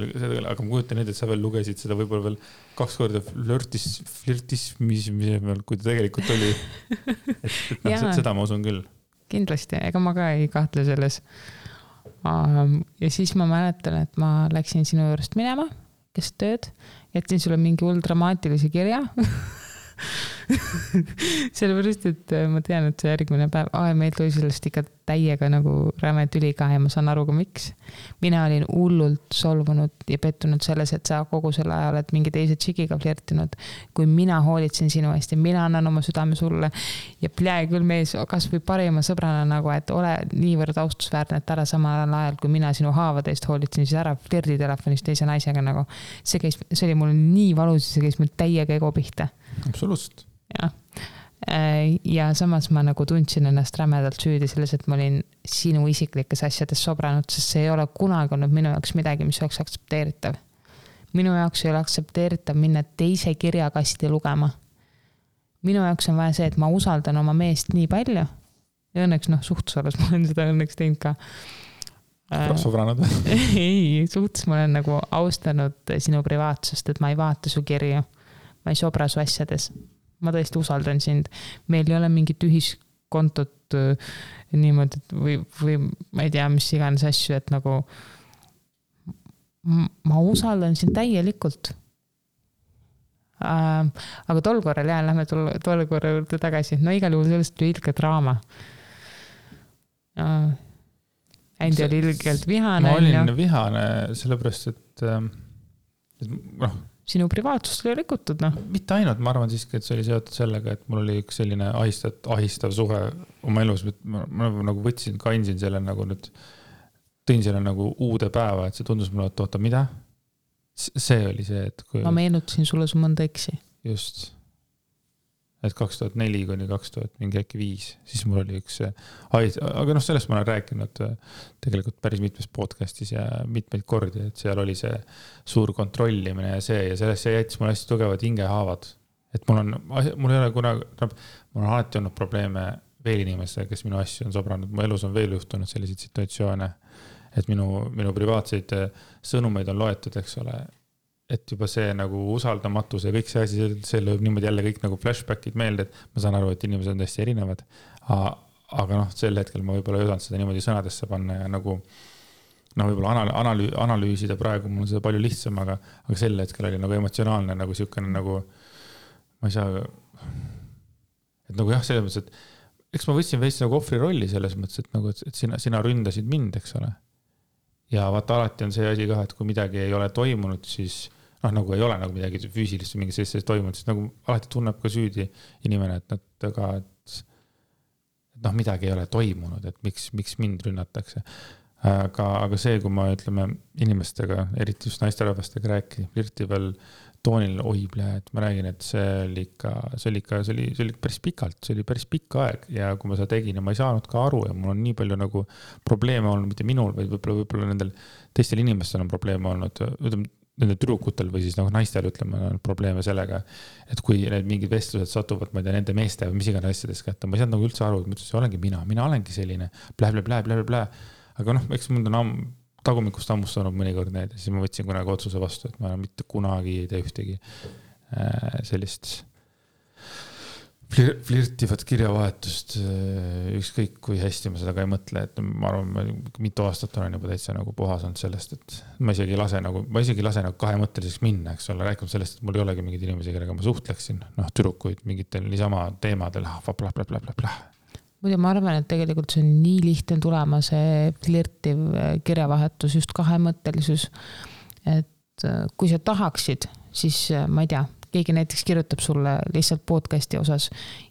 aga ma kujutan nüüd, et sa veel lugesid seda võib-olla veel 2 korda flirtismi, kui ta tegelikult oli. Et seda ma usun küll. Kindlasti, ega ma ka ei kahtle selles. Ja siis ma mäletan, et ma läksin sinu juurest minema, kes tööd, jätsin sulle mingi hull dramaatilise kirja. Sellepärast, et ma tean, et see järgmine päev, meil tuli sellest ikka täiega nagu räme tüli ka ja ma saan aru ka miks. Mina olin hullult solvunud ja pettunud selles, et sa kogu selle ajal oled mingi teise tšikiga flirtinud, kui mina hoolitsen sinu eest ja mina annan oma südame sulle ja plee küll mees, kas või parima sõbrana nagu, et ole niivõrd austusväärne, et ära samal ajal, kui mina sinu haavade eest hoolitsen, siis ära flirdi telefonis teise naisega nagu. See oli mul nii valus, see käis mul täiega ego pihta. Absoluutselt. Ja samas ma nagu tundsin ennast rämedalt süüdi selles, et ma olin sinu isiklikes asjades sobranud, sest see ei ole kunagi olnud minu jaoks midagi, mis oleks aktsepteeritav. Minu jaoks ei ole aktsepteeritav minna teise kirjakasti lugema. Minu jaoks on vaja see, et ma usaldan oma meest nii palju ja õnneks suhtusolas ma olen seda õnneks teinud ka. Sobranud? Ei, suhtes ma olen nagu austanud sinu privaatsust, et ma ei vaata su kirju. Ma ei sobra su asjades. Ma tõesti usaldan sind. Meil ei ole mingit ühiskontot niimoodi või ma ei tea, mis iganes asju, et nagu ma usaldan sind täielikult. Aga tol korral lähme tol korral juurde tagasi. No igal juhul sellest oli ilge draama. Andi oli ilgelt vihane. Ma olin vihane sellepärast, et sinu privaatsust oli rikutud, Mitte ainult, ma arvan siiski, et see oli seotud sellega, et mul oli üks selline ahistav suhe oma elus, ma nagu võtsin, kandsin selle nagu nüüd, tõin selle nagu uude päeva, et see tundus mulle, et oota, mida? See oli see, et kui... Ma meenutasin sulle su mõnda eksi. Just. Et 2004 kuni 2005, siis mul oli üks aga sellest ma olen rääkinud tegelikult päris mitmes podcastis ja mitmeid kordi, et seal oli see suur kontrollimine ja sellest jättis mul hästi tugevad hingehaavad. Et mul ei ole kunagi, mul on alati olnud probleeme veel inimestega, kes minu asju on sobranud. Mu elus on veel juhtunud selliseid situatsioone, et minu privaatseid sõnumeid on loetud, eks ole, et juba see nagu usaldamatus ja kõik see asi, see lööb niimoodi jälle kõik nagu flashbackid meelde, et ma saan aru, et inimesed on täiesti erinevad, aga sel hetkel ma võib-olla ei osanud seda niimoodi sõnadesse panna ja nagu võib-olla analüüsida praegu mul on seda palju lihtsam, aga sel hetkel oli nagu emotsionaalne nagu siukene nagu ma ei saa et nagu jah, selles mõttes, et eks ma võtsin veits nagu ohvri rolli selles mõttes, et nagu, et sina ründasid mind, eks ole. Ja vaata alati on see asi ka, et kui midagi ei ole toimunud, siis nagu ei ole nagu midagi füüsilist või mingi sellist toimunud, siis nagu alati tunneb ka süüdi inimene, et midagi ei ole toimunud, et miks mind rünnatakse. Aga see, kui ma ütleme inimestega, eriti just naisterahvastega rääkida, flirtival toonil et ma räägin, et see oli päris pikalt, see oli päris pikk aeg ja kui ma seda tegin ja ma ei saanud ka aru ja mul on nii palju nagu probleeme olnud, mitte minul, vaid võib-olla nendel teistel inimestel on probleeme olnud, nendel tüdrukutel või siis naistel on probleeme sellega, et kui need mingid vestlused satuvad, ma ei tea, nende meeste või mis iganes asjades kätte, ma ei saanud nagu üldse aru, et ma ütlesin, olengi mina olengi selline, blä. Aga eks mul on tagumikust ammustanud mõnikord need ja siis ma võtsin kunagi otsuse vastu, et ma mitte kunagi ei tee ühtegi sellist flirtivat kirjavahetust, ükskõik kui hästi ma seda ka ei mõtle, et ma arvan, mitu aastat olen juba täitsa nagu puhas olnud sellest, et ma isegi lase nagu kahemõtteliseks minna, eks ole, rääkima sellest, et mul ei olegi mingid inimesi, kellega ma suhtleksin, tüdrukuid mingitel niisama teemadel, bla. Muidu ma arvan, et tegelikult see on nii lihtne tulema see flirtiv kirjavahetus, just kahemõttelisus, et kui sa tahaksid, siis ma ei tea, keegi näiteks kirjutab sulle lihtsalt podcasti osas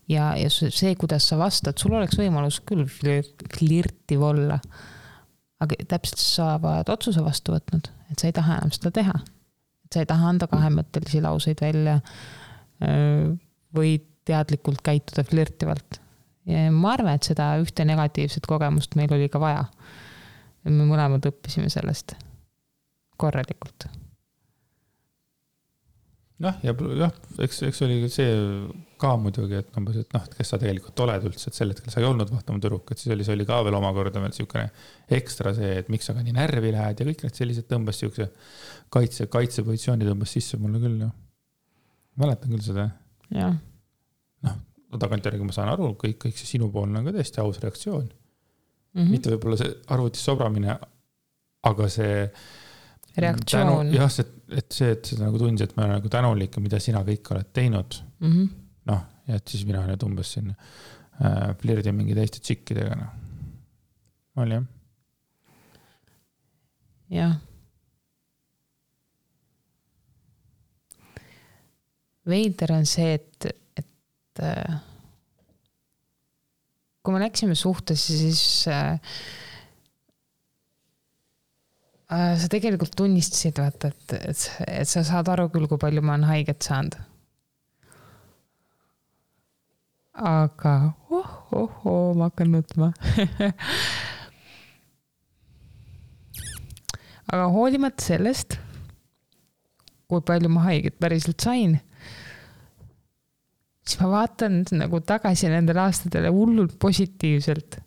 ja see, kuidas sa vastad, sul oleks võimalus küll flirtiv olla, aga täpselt sa oled otsuse vastu võtnud, et sa ei taha enam seda teha, et sa ei taha anda kahemõttelisi lauseid välja või teadlikult käituda flirtivalt. Ja ma arvan, et seda ühte negatiivset kogemust meil oli ka vaja. Me mõlemad õppisime sellest korralikult. Eks oli see ka muidugi, et kes sa tegelikult oled üldse, et sel hetkel sa ei olnud vahtama tüdruk, et siis oli ka veel omakorda veel siukene ekstra see, et miks sa ka nii närvi lähed ja kõik need sellised tõmbas siukse kaitsepositsiooni tõmbas sisse mulle küll. Mäletan küll seda. Jah. Tagantjärgi ma saan aru, kõik see sinupoolne on ka tõesti aus reaktsioon. mitte võib-olla see arvutis sobramine, aga see reaktsioon. Jah, et sa nagu tundsid, et ma olen nagu tänulik, mida sina kõik oled teinud. Noh, ja et siis mina nüüd umbes siin flirdin mingi teiste tšikkidega. No. Oli jah? Jah. Veider on see, et kui me läksime suhtesse, siis sa tegelikult tunnistasid, vaata, et sa saad aru küll, kui palju ma olen haiget saanud. Aga ma hakkan nutma. Aga hoolimata sellest, kui palju ma haiget päriselt sain, siis ma vaatan nagu tagasi nendele aastatele hullult positiivselt.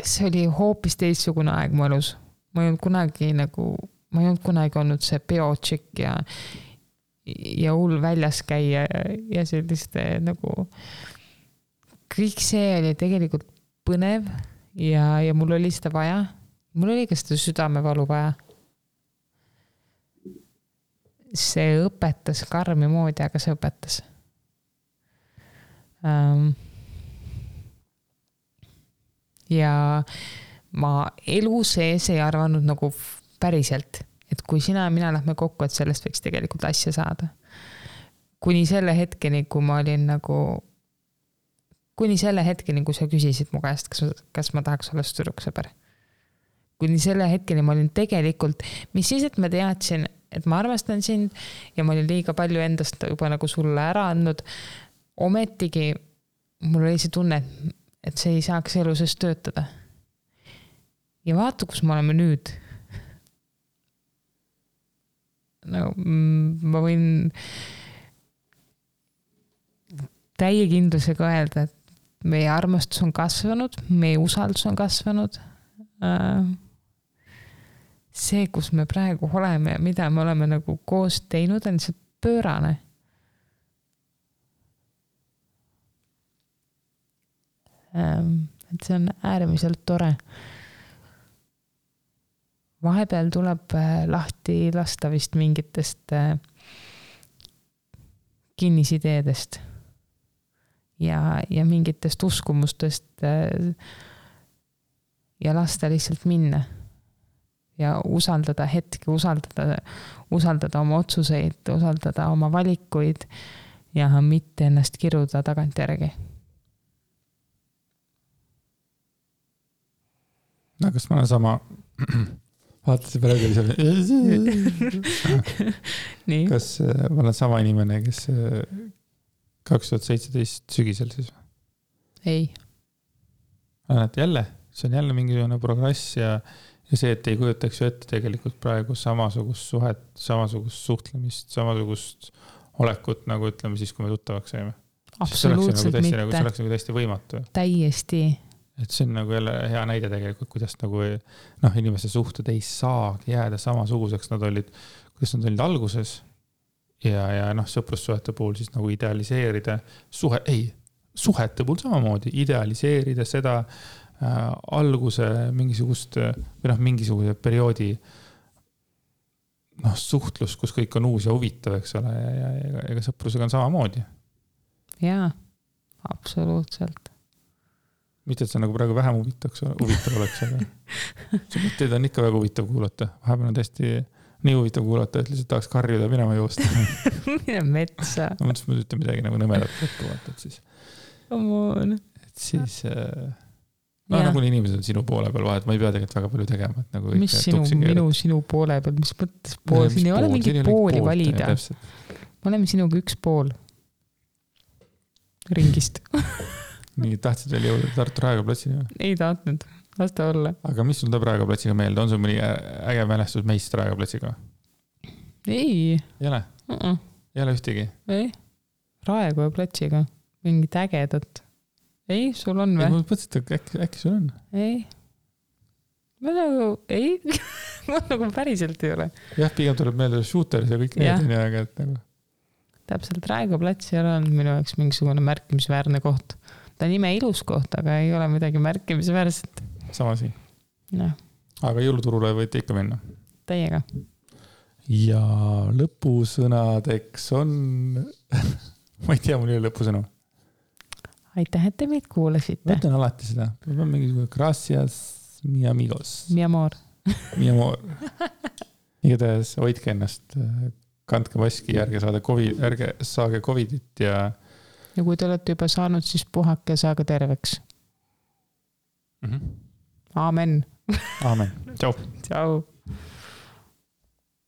See oli hoopis teistsugune aeg mu elus. Ma ei olnud kunagi olnud see peotšik ja hull väljas käia ja selliste nagu kõik see oli tegelikult põnev ja mul oli seda vaja. Mul oli ka seda südamevalu vaja. See õpetas karmi moodi, aga see õpetas. Ja ma elu sees ei arvanud nagu päriselt, et kui sina ja mina lähme kokku, et sellest võiks tegelikult asja saada. Kuni selle hetkeni, kui sa küsisid mu käest, kas ma tahaks olla tüdruksõber. Kuni selle hetkeni ma olin tegelikult, mis siis, et ma teadsin, et ma armastan sind ja ma olin liiga palju endast juba nagu sulle ära andnud. Ometigi mul oli see tunne, et see ei saaks elu sees töötada. Ja vaata, kus me oleme nüüd. No, ma võin täie kindlusega öelda, et meie armastus on kasvanud, meie usaldus on kasvanud. See, kus me praegu oleme ja mida me oleme nagu koos teinud, on see pöörane. Et see on äärmiselt tore. Vahepeal tuleb lahti lasta vist mingitest kinnisideedest ja mingitest uskumustest ja lasta lihtsalt minna ja usaldada hetki, usaldada oma otsuseid, usaldada oma valikuid ja mitte ennast kiruda tagantjärgi. No, kas ma olen sama vaatasin praegu Nii. Kas ma olen sama inimene, kes 2017 sügisel siis? Ei. Jälle, see on jälle mingisugune progress ja see, et ei kujutaks ju ette tegelikult praegu samasugust suhet, samasugust suhtlemist, samasugust olekut, nagu ütleme siis, kui me tuttavaks saime. Absoluutselt mitte. See oleks nagu täiesti võimatu. Täiesti. Et see on nagu jälle hea näide tegelikult, kuidas nagu inimeste suhted ei saagi jääda samasuguseks, kuidas nad olid alguses ja sõprussuhete puhul siis nagu idealiseerida suhete puhul samamoodi, idealiseerida seda alguse mingisuguse perioodi suhtlus, kus kõik on uus ja huvitav, eks ole, ja ega sõprusega on samamoodi. Jaa, absoluutselt. Mitte, et see nagu praegu vähem huvitav oleks, aga see mõtteid on ikka väga huvitav kuulata. Vahepeal on tõesti nii huvitav kuulata, et lihtsalt tahaks karjuda minema joosta. Mine metsa. Ma mõtlesin, et ütle midagi nagu nõmedat lõppu, et siis. Et siis, nagu inimesed on sinu poole peal vahet, ma ei pea tegelikult väga palju tegema. Et nagu mis sinu poole peal, mis mõttes pool? Siin ei ole mingit pooli valida. Me oleme sinuga üks pool ringist. Nii tahtsid veel jõuda Tartu Raekoja platsini? Ei tahtnud, lasta olla. Aga mis sul tuleb Raekoja platsiga meelde? On sul mõni äge mälestus meist Raekoja platsiga? Ei. Ei ole? Ei ole ühtegi? Ei. Raekoja platsiga. Mingit ägedat. Ei, sul on või? Ma mõtlesin, et äkki sul on? Ei. Ma nagu päriselt ei ole. Jah, pigem tuleb meelde Shooteris ja kõik need on aga et nagu. Täpselt Raekoja plats ei ole olnud minu jaoks mingisugune märkimisväärne koht. ta nime ilus koht, aga ei ole midagi märkimisväärset. Sama siin. No. Aga jõuluturule võite ikka minna. Täiega. Ja lõpusõnadeks on... ma ei tea, mul ei ole lõpusõnu. Aitäh, et te meid kuulasite. Ma ütlen alati seda. Peab on mingi gracias, mi amigos. Mi amor. Mi amor. Igatahes hoidke ennast, kandke maski, ärge saage Covidit ja kui te olete juba saanud, siis puhake ja saage terveks. Aamen. Aamen. Tšau. Tšau.